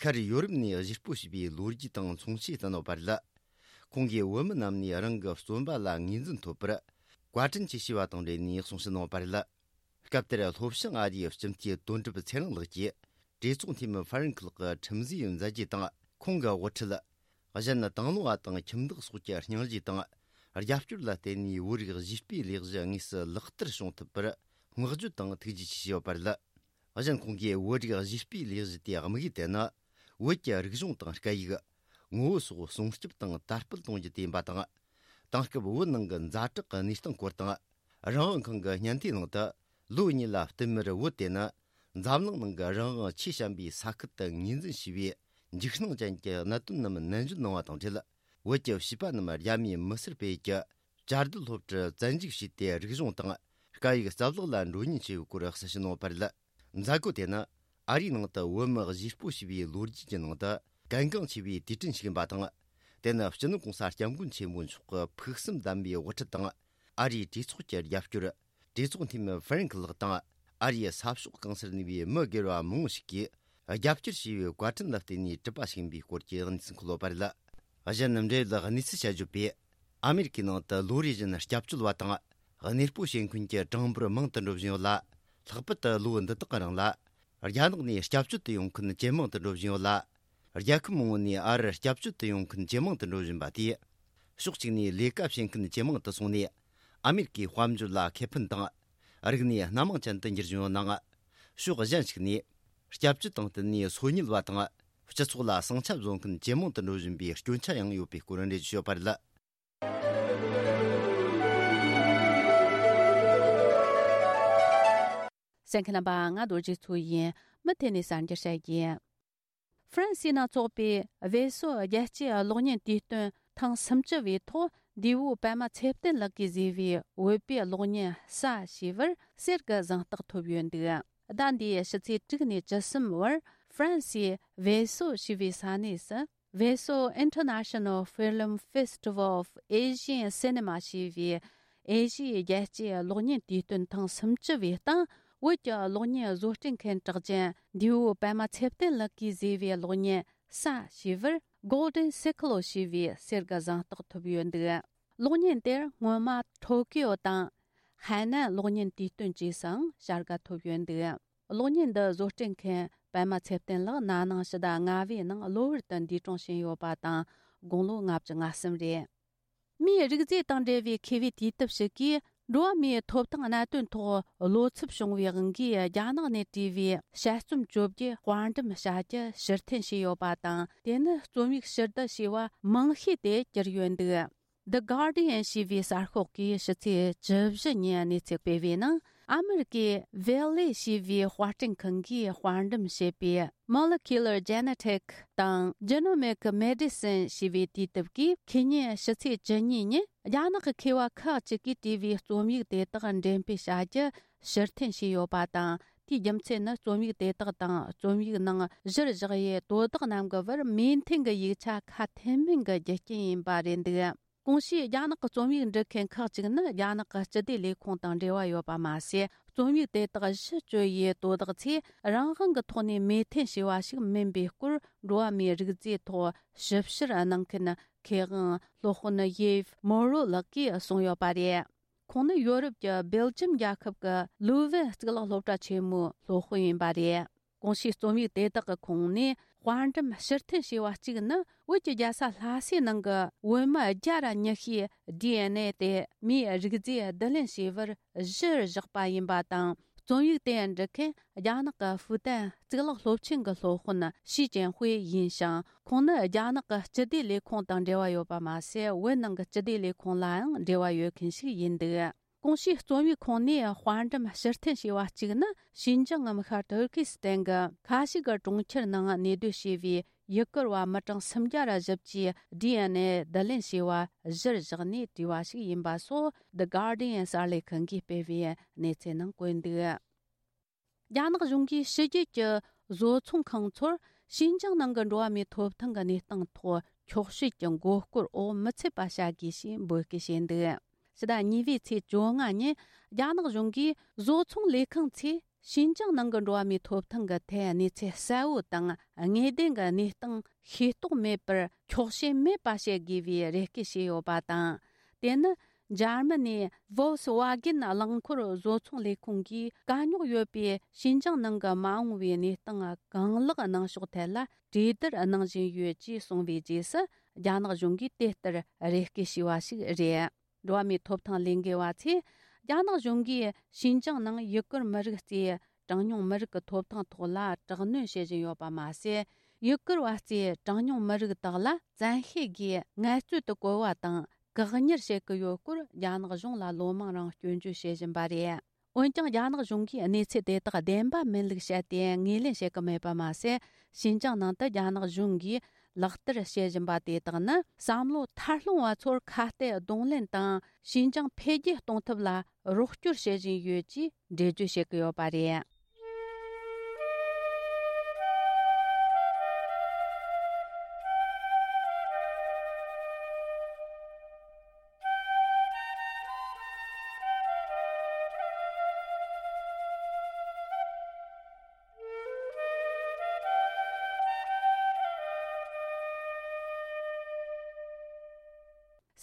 ཤར་ཡོ་རོབ་ནས་གཞིས་སྤོ་བྱས་པའི་ལོ་རྒྱུས་དང་མཚུངས་ཆོས་བསྟན་ཡོད་པ་རེད། ཁོང་གིས་བོད་མི་རྣམས་ནས་རང་གི་བརྩོན་པ་ལ་ངོས་འཛིན་ཐོབ་པར་བཀའ་དྲིན་ཆེ་ཞུས་པ་དང་འབྲེལ་ནས་གསུང་བཤད་གནང་བ་རེད། སྐབས་དེར་ལྷོ་བྱང་ཨ་རིའི་སྤྱི་འཐུས་དོན་གྲུབ་ཚེ་རིང་ལགས་ཀྱིས་གྲོས་ཚོགས་འཐུས་མི་ཧྥ་རན་ཁི་ལགས་ཀྱི་ཁྲིམས་བཟོའི་མཛད་རྗེས་དང་ཁོང་གི་དབུ་ཁྲིད། གཞན་དང་བླངས་པ་དང་ཁྱིམ་བདག་སོགས་ཀྱི་སྙིང་རྗེ་དང་རྒྱབ་སྐྱོར་ལ་བརྟེན་ནས་བོད་རིགས་གཞིས་སྤོའི་ལས་གཞི་དངོས་སུ་ལག་བསྟར་བྱུང་ཐུབ་པར་བསྔགས་བརྗོད་དང་ཐུགས་རྗེ་ཆེ་ཞུས་ཡོད་པ་རེད། གཞན་ཁོང་གིས་བོད་རིགས་གཞིས་སྤོའི་ལས་གཞི་དེའི་དམིགས་ཡུལ་དེ་ནི། བོད་ཀྱི་རིག་གཞུང་དང་སྐད་ཡིག་ངོ་བོ་སོགས་སྲུང་སྐྱོབ་དང་དར་སྤེལ་གཏོང་རྒྱུ་དེ་ཡིན་པ་དང་། དེང་སྐབས་བོད་ནང་གི་ཛ་དྲག་གི་གནས་སྟངས་སྐོར་དང་། རང་དབང་ཁང་གི་སྙན་ཐོའི་ནང་དུ། ལོ་གཉིས་ལ་བསྟུད་མར་བོད་དེ་ནི་འཛམ་གླིང་ནང་གི་རང་དབང་ཆེས་ཞན་པའི་ས་ཁུལ་དུ་ངོས་འཛིན་བྱས་པའི་འཇིགས་སྣང་ཅན་གྱི་གནད་དོན་རྣམས་ནན་བརྗོད་གནང་བ་དང་འབྲེལ། བོད་ཀྱི་བྱིས་པ་རྣམས་རྒྱ་མིའི་མི་སེར་སྤེལ་ཡུལ་གྱི་བཅའ་སྡོད་སློབ་གྲྭར་བཙན་འཇུག་བྱས་ཏེ། རིག་གཞུང་དང་སྐད་ཡིག་རྩ་བརླག་ལ་འགྲོ་ཉེན་ཆེ་བའི་སྐོར་གསལ་བཤད་གནང་བ་རེད། མཛད་སྒོ་དེ་ནི་ཨ་རིའི་ནང་དུ་བོད་མི་གཞིས་སྤོ་བྱས་པའི་ལོ་རྒྱུས་ཀྱི་ནང་དུ་གལ་འགངས་ཆེ་བའི་དུས་དྲན་ཞིག་ཡིན་པ་དང་། དེ་ནི་སྤྱི་ནོར་གོང་ས་སྐྱབས་མགོན་ཆེན་པོ་མཆོག་གི་ཕུགས་བསམ་ལྡན་པའི་དབུ་ཁྲིད་དང་། ཨ་རིའི་གྲོས་ཚོགས་ཀྱི་རྒྱབ་སྐྱོར། གྲོས་ཚོགས་འཐུས་མི་ཧྥ་རན་ཁི་ལགས་དང་། ཨ་རིའི་ས་ཕྱོགས་གང་སར་གནས་པའི་མི་སྒེར་བ་མང་བོ་ཞིག་གིས་རྒྱབ་སྐྱོར་བྱས་པའི་བཀའ་དྲིན་ལ་བརྟེན་ནས་གྲུབ་པ་ཞིག་ཡིན་པའི་སྐོར་གྱི་གནས་ཚུལ་འཁོད་ཡོད་པ་རེད། གཞན་འབྲེལ་ཡོད་གནས་ཚུལ་བཤད་བརྗོད་པས། ཨ་མེ་རི་ཁའི་ནང་དུ་ལོ་རེ་བཞིན་སྐྱབས་བཅོལ་བ་དང་། གནས་སྤོ་བྱེད་མཁན་གྱི་གྲངས་འབོར་མང་དུ་འགྲོ་བཞིན་ཡོད་ལ། ལྷག་པར་དུ་ལོ་འདི་དག་གི་རིང་ལ། རྒྱ་ནག་ནས་སྐྱབས་བཅོལ་དུ་ཡོང་མཁན་ཇེ་མང་དུ་འགྲོ་བཞིན་ཡོད་ལ། རྒྱལ་ཁབ་མང་བོ་ནས་ཨ་རིར་སྐྱབས་བཅོལ་དུ་ཡོང་མཁན་ཇེ་མང་དུ་འགྲོ་བཞིན་པ་དེས། ཕྱོགས་གཅིག་ནས་ལས་ཀ་བྱེད་མཁན་ཇེ་མང་དུ་སོང་ནས། ཨ་མེ་རི་ཁའི་དཔལ་འབྱོར་ལ་ཁེ་ཕན་དང་། རིག་གནས་སྣ་མང་ཅན་དུ་འགྱུར་བཞིན་ཡོད་ནའང་། ཕྱོགས་གཞན་ཞིག་ནས། སྐྱབས་བཅོལ་དང་བསྟུན་ནས་སོ་ཉུལ་བ་དང་། སྤྱི་ཚོགས་ལ་ཟིང་ཆ་བཟོ་མཁན་ཇེ་མང་དུ་འགྲོ་བཞིན་པའི་སྐྱོན་ཆ་ཡང་ཡོད་པའི་སྐོར་འགྲེལ་བརྗོད་ཞུས་པ་རེད། གསན་མཁན་རྣམ་པ། ང་རྡོ་རྗེ་མཚོ་ཡིན། མུ་མཐུད་ནས་གསར་འགྱུར་བཤད་རྒྱུ། ཧྥ་རན་སིའི་ནང་འཚོགས་པའི་བེ་སོ་རྒྱལ་སྤྱིའི་གློག་བརྙན་དུས་སྟོན་ཐེངས་སུམ་ཅུ་བའི་ཐོག་འདས་པོ་པད་མ་ཚེ་བརྟན་ལགས་ཀྱིས་བཟོས་པའི་བོད་པའི་གློག་བརྙན་གསའ་ཞེས་པར་གསེར་གྱི་གཟེངས་རྟགས་ཐོབ་ཡོད་འདུག་ཟླ་འདིའི་ཕྱི་ཚེས་དྲུག་ནས་བཅུ་གསུམ་བར་ཧྥ་རན་སིའི་བེ་སོ་ཞེས་པའི་ས་གནས་སུ། Veso International Film Festival of Asian Cinema ཞེས་པའི་ཨེ་ཤི་ཡའི་རྒྱལ་སྤྱིའི་གློག་བརྙན་དུས་སྟོན་ཐེངས་སུམ་ཅུ་བའི་སྟེང་བོད་ཀྱི་གློག་བརྙན་བཟོ་སྐྲུན་མཁན་གྲགས་ཅན་འདས་པོ་པད་མ་ཚེ་བརྟན་ལགས་ཀྱིས་བཟོས་པའི་གློག་བརྙན་གསའ་ཞེས་པར་Golden Sickle ཞེས་པའི་གསེར་གྱི་གཟེངས་རྟགས་ཐོབ་ཡོད་འདུག་གློག་བརྙན་དེར་སྔོན་མ་ཐོ་ཀིའོ་དང་ཧའེ་ནན་གློག་བརྙན་དུས་སྟོན་བཅས་སུའང་བྱ་དགའ་ཐོབ་ཡོད་འདུག་གློག་བརྙན་འདི་བཟོ་སྐྲུན་མཁན་པད་མ་ཚེ་བརྟན་ལགས་ན་ནིང་ཕྱི་ཟླ་ལྔ་པའི་ནང་གློ་བུར་དུ་འདས་གྲོངས་ཕྱིན་ཡོད་པ་དང་། དགུང་ལོ་ལྔ་བཅུ་ང་གསུམ་རེད། མིའི་རིགས་རྫས་དང་འབྲེལ་བའི་མཁས་པའི་དུས་དེབ་ཞིག་གིས་འགྲོ་བ་མིའི་ཐོབ་ཐང་གནད་དོན་ཐོག་བློ་འཚབ་བྱུང་བའི་དབང་གིས་རྒྱ་ནག་ནས་བྲིས་པའི་དཔྱད་རྩོམ་བཅོ་བརྒྱད་དཔར་འགྲེམས་བྱ་རྒྱུ་ཕྱིར་འཐེན་བྱས་ཡོད་པ་དང་། དེ་ནི་རྩོམ་ཡིག་ཕྱིར་བསྡུ་བྱས་པ་མང་ཤོས་དེ་གྱུར་ཡོད་འདུག The Guardian ཞེས་པའི་གསར་ཤོག་གིས་ཕྱི་ཚེས་བཅུ་བཞི་ཉིན་གནས་ཚུལ་སྤེལ་བའི་ནང་། ཨ་མེ་རི་ཀའི་Veil ཞེས་པའི་དཔར་སྐྲུན་ཁང་གིས་དཔར་འགྲེམས་བྱས་པའི་Molecular Genetic དང་Genomic Medicine ཞེས་པའི་དུས་དེབ་ཀྱིས་ཁེ་ཉིན་ཕྱི་ཚེས་བཅུ་གཉིས་ཉིན་རྒྱ་ནག་གི་མཁས་པ་ཁག་ཅིག་གིས་བྲིས་པའི་རྩོམ་ཡིག་དེ་དག་འགྲེམས་སྤེལ་བྱ་རྒྱུ་ཕྱིར་འཐེན་བྱས་ཡོད་པ་དང་། དེའི་རྒྱུ་མཚན་ནི་རྩོམ་ཡིག་དེ་དག་དང་རྩོམ་ཡིག་ནང་གཞིར་བཞག་ཡས་དོ་བདག་རྣམས་ཀྱི་བར་མོས་མཐུན་གྱི་ཡིག་ཆ་ཁ་མཐུན་མིན་གྱི་རྒྱུ་རྐྱེན་ཡིན་པ་རེད་འདུག་གོང་ཞུས་རྒྱ་ནག་གི་རྩོམ་ཡིག་འབྲི་མཁན་ཁག་ཅིག་ནི་རྒྱ་ནག་གི་སྤྱི་བདེ་ལས་ཁུངས་དང་འབྲེལ་བ་ཡོད་པ་མ་ཟད། རྩོམ་ཡིག་དེ་དག་གཞི་བཅོལ་ཡས་དོ་བདག་ཚོས་རང་དབང་གི་ཐོག་ནས་མོས་མཐུན་བྱས་པ་ཞིག་མིན་པའི་སྐོར། འགྲོ་བ་མིའི་རིགས་རྫས་ཐོག་ཞིབ་བཤེར་གནང་མཁན་མཁས་དབང་སློབ་དཔོན་ཡེབ་མོ་རོ་ལགས་ཀྱིས་གསུངས་ཡོད་པ་རེད། ཁོང་ནི་ཡོ་རོབ་ཀྱི་སྦེལ་ཇམ་རྒྱལ་ཁབ་ཀྱི་ལུ་ཝེན་གཙུག་ལག་སློབ་གྲྭ་ཆེན་མོའི་སློབ་དཔོན་ཡིན་པ་རེད། གོང་ཞུས་རྩོམ་ཡིག་དེ་དག་གི་ཁོངས་ནས་དཔར་འགྲེམས་ཕྱིར་འཐེན་བྱས་པ་གཅིག་ནི། བོད་ཀྱི་རྒྱལ་ས་ལྷ་སའི་ནང་གི་བོད་མི་བརྒྱ་ར་ཉི་ཤུའི་ཌི་ཨེན་ཨེ་དེ་མིའི་རིགས་རྫས་བསྡུ་ལེན་བྱས་པར་གཞིར་བཞག་པ་ཡིན་པ་དང་། རྩོམ་ཡིག་དེ་འབྲི་མཁན་རྒྱ་ནག་གི་ཧྥུ་ཏན་གཙུག་ལག་སློབ་ཆེན་གྱི་སློབ་དཔོན་ཞི་ཅན་ཧུའེ་ཡིན་ཞིང་། ཁོང་ནི་རྒྱ་ནག་གི་སྤྱི་བདེ་ལས་ཁུངས་དང་འབྲེལ་བ་ཡོད་པ་མ་ཟད། བོད་ནང་གི་སྤྱི་བདེ་ལས་ཁུངས་ལའང་འབྲེལ་བ་ཡོད་མཁན་ཞིག་ཡིན་འདུག་གོང་ཞུས་རྩོམ་ཡིག་ཁོངས་ནས་དཔར་འགྲེམས་ཕྱིར་འཐེན་བྱས་པ་གཅིག་ནི། ཞིན་ཅང་ངམ་ཤར་ཏུར་ཀི་སི་ཐན་གྱི་ཁ་ཤིག་གི་གྲོང་ཁྱེར་ནང་གནས་སྡོད་བྱས་པའི་ཡུ་གུར་བ་མི་གྲངས་སུམ་བརྒྱ་ར་བཞི་བཅུའི་ཌི་ཨེན་ཨེ་བསྡུ་ལེན་བྱས་པ་གཞིར་བཞག་ནས་བྲིས་པ་ཞིག་ཡིན་པ་སོགས། The Guardian གསར་ལས་ཁང་གིས་སྤེལ་བའི་གནས་ཚུལ་ནང་བཀོད་འདུག་རྒྱ་ནག་གཞུང་གིས་ཕྱི་རྒྱལ་གྱི་བཟོ་ཚོང་ཁང་ཚོར་ཞིན་ཅང་ནང་གི་འགྲོ་བ་མིའི་ཐོབ་ཐང་གི་གནས་སྟངས་ཐོག་འཁྱོག་བཤད་ཀྱི་མགོ་སྐོར་འོག་མི་ཚུད་པ་བྱ་དགོས་ཞེས་འབོད་སྐུལ་བྱས་འདུག་ཕྱི་ཟླ་གཉིས་པའི་ཚེས་བཅོ་ལྔ་ཉིན་རྒྱ་ནག་གཞུང་གིས་བཟོ་ཚོང་ལས་ཁང་ཚོས་ཞིན་ཅང་ནང་གི་འགྲོ་བ་མིའི་ཐོབ་ཐང་གི་ཐད་གནས་ཚུལ་གསལ་བོ་དང་། དངོས་བདེན་གྱི་གནས་སྟངས་ཤེས་རྟོགས་མེད་པར་འཁྱོག་བཤད་མེད་པ་བྱེད་དགོས་པའི་རེ་སྐུལ་བྱས་ཡོད་པ་དང་། དེ་ནི། འཇར་མ་ནིའི་Volkswagen རླངས་འཁོར་བཟོ་ཚོང་ལས་ཁུངས་ཀྱིས་དཀའ་རྙོག་ཡོད་པའི་ཞིན་ཅང་ནང་གི་མ་འོངས་པའི་གནས་སྟངས་གང་ལེགས་གནང་ཕྱོགས་ཐད་ལ་གྲོས་བསྡུར་གནང་བཞིན་ཡོད་ཅེས་གསུངས་པའི་རྗེས་སུ། རྒྱ་ནག་གཞུང་གིས་དེ་ལྟར་རེ་སྐུལ་བྱས་པ་ཞིག་རེད། འགྲོ་བ་མིའི་ཐོབ་ཐང་ལས་འགུལ་བ་ཚོས། རྒྱ་ནག་གཞུང་གིས་ཞིན་ཅང་ནང་ཡུ་གུར་མི་རིགས་གཙོས་གྲངས་ཉུང་མི་རིགས་ཀྱི་ཐོབ་ཐང་ཐོག་ལ་དྲག་གནོན་བྱེད་བཞིན་ཡོད་པ་མ་ཟད། ཡུ་གུར་བ་གཙོས་གྲངས་ཉུང་མི་རིགས་དག་ལ་བཙན་ཤེད་ཀྱིས་ངལ་རྩོལ་དུ་བཀོལ་བ་དང་། བཀག་ཉར་བྱེད་ཀྱི་ཡོད་སྐོར་རྒྱ་ནག་གཞུང་ལ་ལོ་མང་རིང་སྐྱོན་བརྗོད་བྱེད་བཞིན་པ་རེད། འོན་ཀྱང་། རྒྱ་ནག་གཞུང་གིས་གནས་ཚུལ་དེ་དག་བདེན་པ་མིན་ལུགས་བཤད་དེ་ངོས་ལེན་བྱེད་ཀྱི་མེད་པ་མ་ཟད། ཞིན་ཅང་ནང་དུ་རྒྱ་ནག་གཞུང་གིས་ལག་བསྟར་བྱེད་བཞིན་པ་དེ་དག་ནི། བསམ་བློ་ཐར་ལྷུང་བ་ཚོར་ཁ་གཏད་གདོང་ལེན་དང་། ཞིན་ཅང་འཕེལ་རྒྱས་གཏོང་ཐབས་ལ་རོགས་སྐྱོར་བྱེད་བཞིན་ཡོད་ཅེས་འགྲེལ་བརྗོད་བྱེད་ཀྱི་ཡོད་པ་རེད།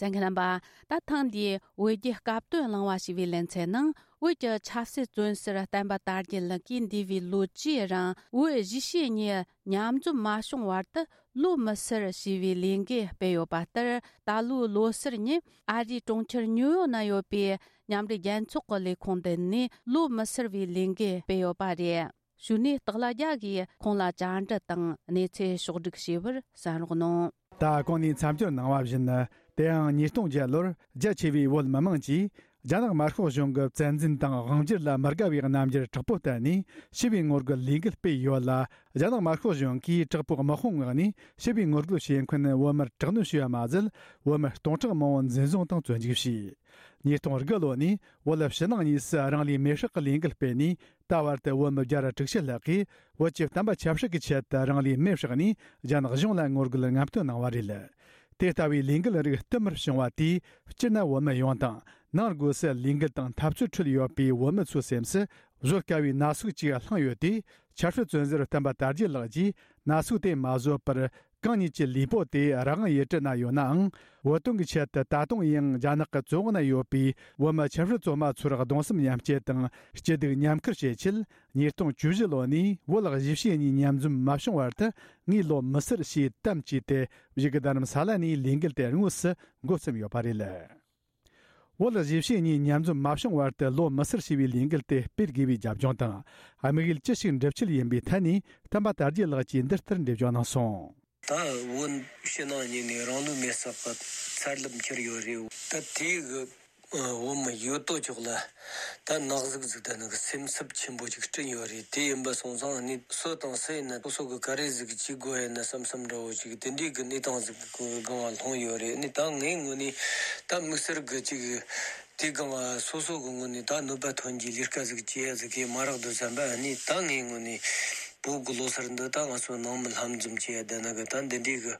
གསན་མཁན་རྣམ་པ། ད་ཐེངས་འདིའི་བོད་རྒྱའི་སྐབས་དོན་གླེང་བ་ཞེས་པའི་ལེ་ཚན་ནང་། བོད་ཀྱི་ཆབ་སྲིད་བཙོན་ཟུར་བསྟན་པ་དར་རྒྱས་ལགས་ཀྱིས་འདས་པའི་ལོ་བཅུའི་རིང་བོད་གཞིས་བྱེས་གཉིས་མཉམ་འཛོམས་མ་བྱུང་བར་དུ་ལོ་མི་སེར་ཞེས་པའི་ལས་འགུལ་སྤེལ་ཡོད་པ་ལྟར། ད་ལོའི་ལོ་སར་ཉིན་ཨ་རིའི་གྲོང་ཁྱེར་ཉིའུ་ཡོག་ན་ཡོད་པའི་མཉམ་འབྲེལ་རྒྱལ་ཚོགས་ཀྱི་ལས་ཁུངས་མདུན་ནས་ལོ་མི་སེར་བའི་ལས་འགུལ་སྤེལ་ཡོད་པ་རེད། གཞུག་ནས་སྟག་ལྷ་རྒྱལ་གྱིས་ཁོང་ལ་བཅར་འདྲི་དང་གནས་ཚུལ་ཕྱོགས་བསྒྲིགས་བྱས་པར་གསན་རོགས་གནང་། ད་གོང་ནས་མཚམས་སྦྱོར་གནང་བ་བཞིན། དེའང་ཉིས་སྟོང་བརྒྱད་ལོར་རྒྱ་ཆེ་བའི་བོད་མི་མང་གིས་རྒྱ་ནག་དམར་ཤོག་གཞུང་གི་བཙན་འཛུལ་དང་དབང་སྒྱུར་ལ་མི་དགའ་བའི་རྣམ་འགྱུར་དྲག་པོ་བསྟན་ནས་ཞི་བའི་ངོ་རྒོལ་ལས་འགུལ་སྤེལ་ཡོད་ལ། རྒྱ་ནག་དམར་ཤོག་གཞུང་གིས་དྲག་པོའི་དམག་དཔུང་མངགས་ནས་ཞི་བའི་ངོ་རྒོལ་བྱེད་མཁན་བོད་མིར་དྲག་གནོན་བྱས་པ་མ་ཟད། བོད་མི་སྟོང་ཕྲག་མང་པོ་འཛིན་བཟུང་དང་བཙོན་འཇུག་བྱས། ཉིས་སྟོང་དགུ་ལོ་ནས་བོད་ཕྱི་ནང་གཉིས་སུ་རང་ལུས་མེར་བསྲེགས་ཀྱི་ལས་འགུལ་སྤེལ་ནས། ད་བར་དུ་བོད་མི་བརྒྱ་ར་དྲུག་ཅུ་ལྷག་གིས་བོད་ཀྱི་བསྟན་པ་ཆབ་སྲིད་ཀྱི་ཆེད་དུ་རང་ལུས་མེར་བསྲེགས་ནས་རྒྱ་ནག་གཞུང་ལ་ངོ་རྒོལ་ལམ་སྟོན་གནང་བ་རེད། དེ་ལྟ་བུའི་ལས་འགུལ་རིགས་བསྟུད་མར་བྱུང་བ་དེས་སྤྱིར་ན་བོད་མི་ཡོངས་དང་། ནང་སྒོས་སུ་ལས་འགུལ་དང་འཐབ་རྩོད་ཁྲོད་ཡོད་པའི་བོད་མི་ཚོའི་སེམས་སུ་བཟོད་དཀའ་བའི་ན་ཟུག་ཅིག་བསླངས་ཡོད་དེ། ཆབ་སྲིད་བཙོན་ཟུར་བསྟན་པ་དར་རྒྱས་ལགས་ཀྱིས་ན་ཟུག་དེ་མ་བཟོད་པར། གང་ཉིད་ཀྱི་ལུས་པོ་དེ་རང་དབང་ཡུལ་གྲུ་ན་ཡོད་ནའང་། བོད་དོན་གྱི་ཆེད་དུ་ད་དུང་ཡང་རྒྱ་ནག་གི་བཙོན་འོག་ན་ཡོད་པའི་བོད་མི་ཆབ་སྲིད་བཙོན་མ་ཚོར་གདུང་སེམས་མཉམ་སྐྱེད་དང་སྐྱིད་སྡུག་མཉམ་ཁུར་བྱེད་ཆེད། ཉིས་སྟོང་བཅུ་བཞི་ལོ་ནས་བོད་གཞིས་བྱེས་གཉིས་མཉམ་འཛོམས་མ་བྱུང་བར་དུ་ངས་ལོ་མི་སེར་ཞེས་གཏམ་བྱས་ཏེ། བཞུགས་སྒར་རྡ་རམ་ས་ལ་ནས་ལས་འགུལ་དེ་དངོས་སུ་འགོ་བརྩམས་ཡོད་པ་རེད། བོད་གཞིས་བྱེས་གཉིས་མཉམ་འཛོམས་མ་བྱུང་བར་དུ་ལོ་མི་སེར་ཞེས་པའི་ལས་འགུལ་དེ་སྤེལ་དགོས་པའི་རྒྱབ་ལྗོངས་དང་། དམིགས་ཡུལ་ཅི་ཞིག་འགྲུབ་ཆེད་ཡིན་པའི་ཐད་ནས། བསྟན་པ་དར་རྒྱས་ལགས་ཀྱིས་འདི་ལྟར་འགྲེལ་བརྗོད་གནང་སོང་། ད་བོད་ཕྱི་ནང་གཉིས་ནས་རང་ལུས་མེར་བསྲེགས་པ་ཚར་ལམ་ཁྱེར་ཡོད་རེད། ད་དེའི་གི་བོད་མི་ཡོད་དོ་ཅོག་ལ་ད་ན་ཟུག་ཟིག་དང་ནི་སེམས་འཚབ་ཆེན་པོ་ཅིག་བསྐྲུན་ཡོད་རེད། དེ་ཡིན་པ་སོང་ཙང་ནི་སུ་དང་སུ་ཡིན་ན་སོ་སོ་གི་ག་རེ་ཟིག་བྱེད་དགོས་ཡིན་ན་བསམ་བསམ་འདྲ་བོ་ཅིག་དེ་འདྲའི་གི་གནས་སྟངས་ཟིག་གི་སྒང་ལ་ལྷུང་ཡོད་རེད། ནི་ད་ངའི་ངོས་ནས་ད་དམིགས་བསལ་གི་ཅིག་དེ་སྒང་ལ་སོ་སོ་གི་ངོས་ནས་ད་གནོད་པ་ཐོན་གྱི་ལས་ཀ་ཟིག་བྱེད་ཡ་ཟིག་གི་མ་རག་འདུག་བསམ་པ། ནི་ད་ངའི་ངོས་ནས། བོད་ཀྱི་ལོ་གསར་འདི་ད་ང་ཚོ་ནང་མི་ལྷན་འཛོམས་བྱས་བསྡད་ན་གི་ད་འདི་འདྲའི་གི་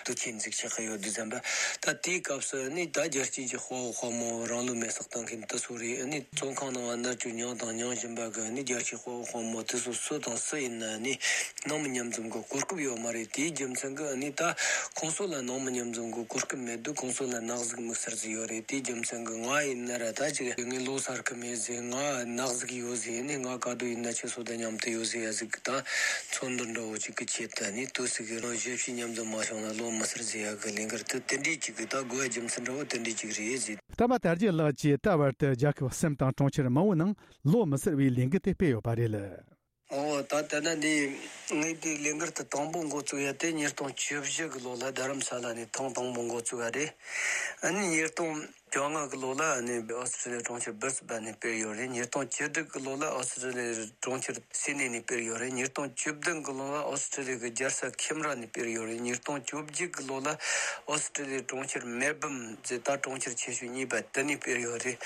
དུས་ཆེན་འཛུགས་བྱེད་ཀྱི་ཡོད་དུས་ཙམ་པ། ད་དེའི་སྐབས་སུ་ནི་ད་རྒྱལ་སྤྱིའི་གི་དཔའ་བོ་དཔའ་མོ་རང་ལུས་མེར་སྲེག་བཏང་མཁན་དེ་ཚོ་རེད། ནི་བཙོན་ཁང་ནང་ང་མནར་གཅོད་མྱངས་དང་མྱང་བཞིན་པ་གི་ནི་རྒྱལ་སྤྱིའི་དཔའ་བོ་དཔའ་མོ་དེ་ཚོ་སུ་དང་སུ་ཡིན་ན་ནི་ནང་མི་མཉམ་འཛོམས་ཀྱི་གོ་སྐབས་ཡོད་མ་རེད། དེའི་རྒྱུ་མཚན་གྱིས་ནི་ད་ཁོང་ཚོ་ལ་ནང་མི་མཉམ་འཛོམས་ཀྱི་གོ་སྐབས་མེད་དུས་ཁོང་ཚོ་ལ་ནག་གཟུགས་དམིགས་བསལ་ཟིག་ཡོད་རེད། དེའི་རྒྱུ་མཚན་གྱིས་ང་ཡིན་ན་ར་ད་ཅིག་ངས་ལོ་གསར་གི་མེད་ཟེར། ང་ནག་གཟུགས་ཡོད་ཟེར། ནི་ང་ག་དུས་ཡིན་ན་ཁྱེད་ཚོ་དང་མཉམ་དུ་ཡོད་ཟེར་ཡ་ཟིག་གི་ད་མཚོན་འདོད་འདྲ་བོ་ཅིག་གི་ཆེད་དུ་ནི་དུས་ཚོད་ཀྱི་རང་གཞིས་བྱེས་མཉམ་འཛོམས་མ་བྱུང་ན་ལོ་མི་སེར་ཟེར་ཡ་གི་ལས་འགུལ་དེ་དེ་འདྲའི་ཅིག་གི་ད་དགོས་རྒྱུ་མཚན་འདྲ་བོ་དེ་འདྲའི་ཅིག་རེད་ཟེར། ད་མ་དར་རྒྱས་ལགས་ཀྱིས་ད་བར་དུ་རྒྱལ་ཁབ་གསུམ་དང་གྲོང་ཁྱེར་མང་བོའི་ནང་ལོ་མི་སེར་བའི་ལས་འགུལ་དེ་སྤེལ་ཡོད་པ་རེད། ཨོ་ད་ལྟ་ན་འདི་ངས་འདི་ལས་འགུལ་དེ་དང་པོ་འགོ་བཙུགས་ཡ་དེ་ཉིས་སྟོང་བཅུ་བཞི་གི་ལོ་ལ་རྡ་རམ་ས་ལ་ནས་ཐེངས་དང་པོ་འགོ་བཙུགས་ཡ་རེད། ཨ་ནི་ཉིས་སྟོང་བཅོ་ལྔ་གི་ལོ་ལ་ཨ་ནི་ཨོ་སི་ཀྲི་ལི་ཡ་གྲོང་ཁྱེར་སྦིར་སི་བན་ནས་སྤེལ་ཡོད་རེད། ཉིས་སྟོང་བཅུ་དྲུག་གི་ལོ་ལ་ཨོ་སི་ཀྲི་ལི་ཡ་གྲོང་ཁྱེར་སིད་ནི་ནས་སྤེལ་ཡོད་རེད། ཉིས་སྟོང་བཅུ་བདུན་གི་ལོ་ལ་ཨོ་སི་ཀྲི་ལི་ཡ་གི་རྒྱལ་ས་ཁེམ་ར་ནས་སྤེལ་ཡོད་རེད། ཉིས་སྟོང་བཅོ་བརྒྱད་གི་ལོ་ལ་ཨོ་སི་ཀྲི་ལི་ཡ་གྲོང་ཁྱེར་མེལ་བྷོན་ཟེར་ད་གྲོང་ཁྱེར་ཆེ་ཤོས་གཉིས་པ་དེ་ནས་སྤེལ་ཡོད་རེད།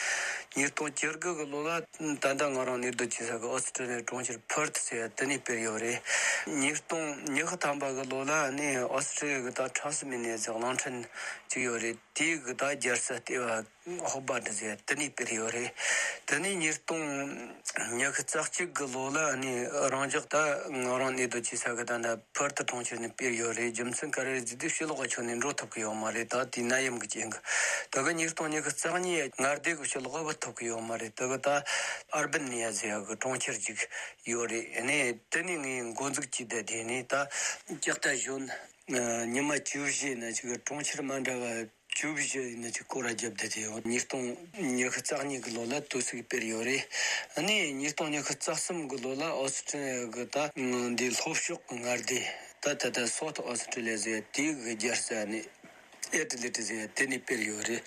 ཉིས་སྟོང་བཅུ་དགུ་གི་ལོ་ལ་ད་ལྟ་ང་རང་གནས་སྡོད་བྱེད་ས་གི་ཨོ་སི་ཀྲི་ལི་ཡ་གྲོང་ཁྱེར་ཕར་ཐི་ཟེར་ཡ་དེ་ནས་སྤེལ་ཡོད་རེད། ཉིས་སྟོང་ཉི་ཤུ་ཐམ་པ་གི་ལོ་ལ་ནི་ཨོ་སི་ཀྲི་ལི་ཡ་གི་ད་ཊ་སི་མེ་ནི་ཡ་ཟེར་གླིང་ཕྲན་ཅིག་ཡོད་རེད། དེའི་གི་ད་རྒྱལ་ས་ལྟེ་བ་ཧོ་བར་ཏི་ཟེར་ཡ་དེ་ནས་སྤེལ་ཡོད་རེད། དེ་ནས་ཉིས་སྟོང་ཉི་ཤུ་རྩ་གཅིག་གི་ལོ་ལ་ནི་རང་འཇགས་ད་ང་རང་གནས་སྡོད་བྱེད་ས་གི་ད་ད་ཕར་ཐི་གྲོང་ཁྱེར་ནས་སྤེལ་ཡོད་རེད། རྒྱུ་མཚན་ག་རེ་རེད་ཟེར་དུས་ཕྱི་ལོགས་ཀྱི་ཕྱོགས་ནས་འགྲོ་ཐུབ་ཀྱི་ཡོད་མ་རེད། ད་དེའི་ནད་ཡམས་ཀྱི་རྐྱེན་གྱིས། ད་གི་ཉིས་སྟོང་ཉི་ཤུ་རྩ་གཉིས་མངའ་སྡེ་གི་ཕྱི་ལོགས་བུད་ཐུབ་ཀྱི་ཡོད་མ་རེད། ད་གི་ད་ཨར་བན་ནི་ཡ་ཟེར་ཡ་གི་གྲོང་ཁྱེར་ཅིག་ཡོད་རེད། ཨ་ནི་དེ་ནས་ངས་འགོ་འཛུགས་བྱས་ཏེ་དེ་ནས་ད་ལྕགས་རྟ་གཞོན་ཉི་མ་བཅུ་བཞི་ནས་ཅིག་གྲོང་ཁྱེར་མ་འདྲ་བ་བཅུ་བཞི་ཡིན་ན་ཅིག་སྐོར་ར་བརྒྱབ་བསྡད་དེ་ཡོད། ཉིས་སྟོང་ཉི་ཤུ་རྩ་གཉིས་ཀྱི་ལོ་ལ་དུས་ཚིགས་སྤེལ་ཡོད་རེད། ཨ་ནི་ཉིས་སྟོང་ཉི་ཤུ་རྩ་གསུམ་གྱི་ལོ་ལ་ཨོ་སི་ཀྲི་ལི་ཡ་གི་ད་འདི་ལྷོ་ཕྱོགས་ཀྱི་མངའ་སྡེ་ད་ད་ལྟ་སོ་ཐི་ཨོ་སི་ཀྲི་ལི་ཡ་ཟེར་དེའི་གི་རྒྱལ་ས་ནི་ཨེ་ཏི་ལེ་ཏི་ཟེར་དེ་ནས་སྤེལ་ཡོད་རེད།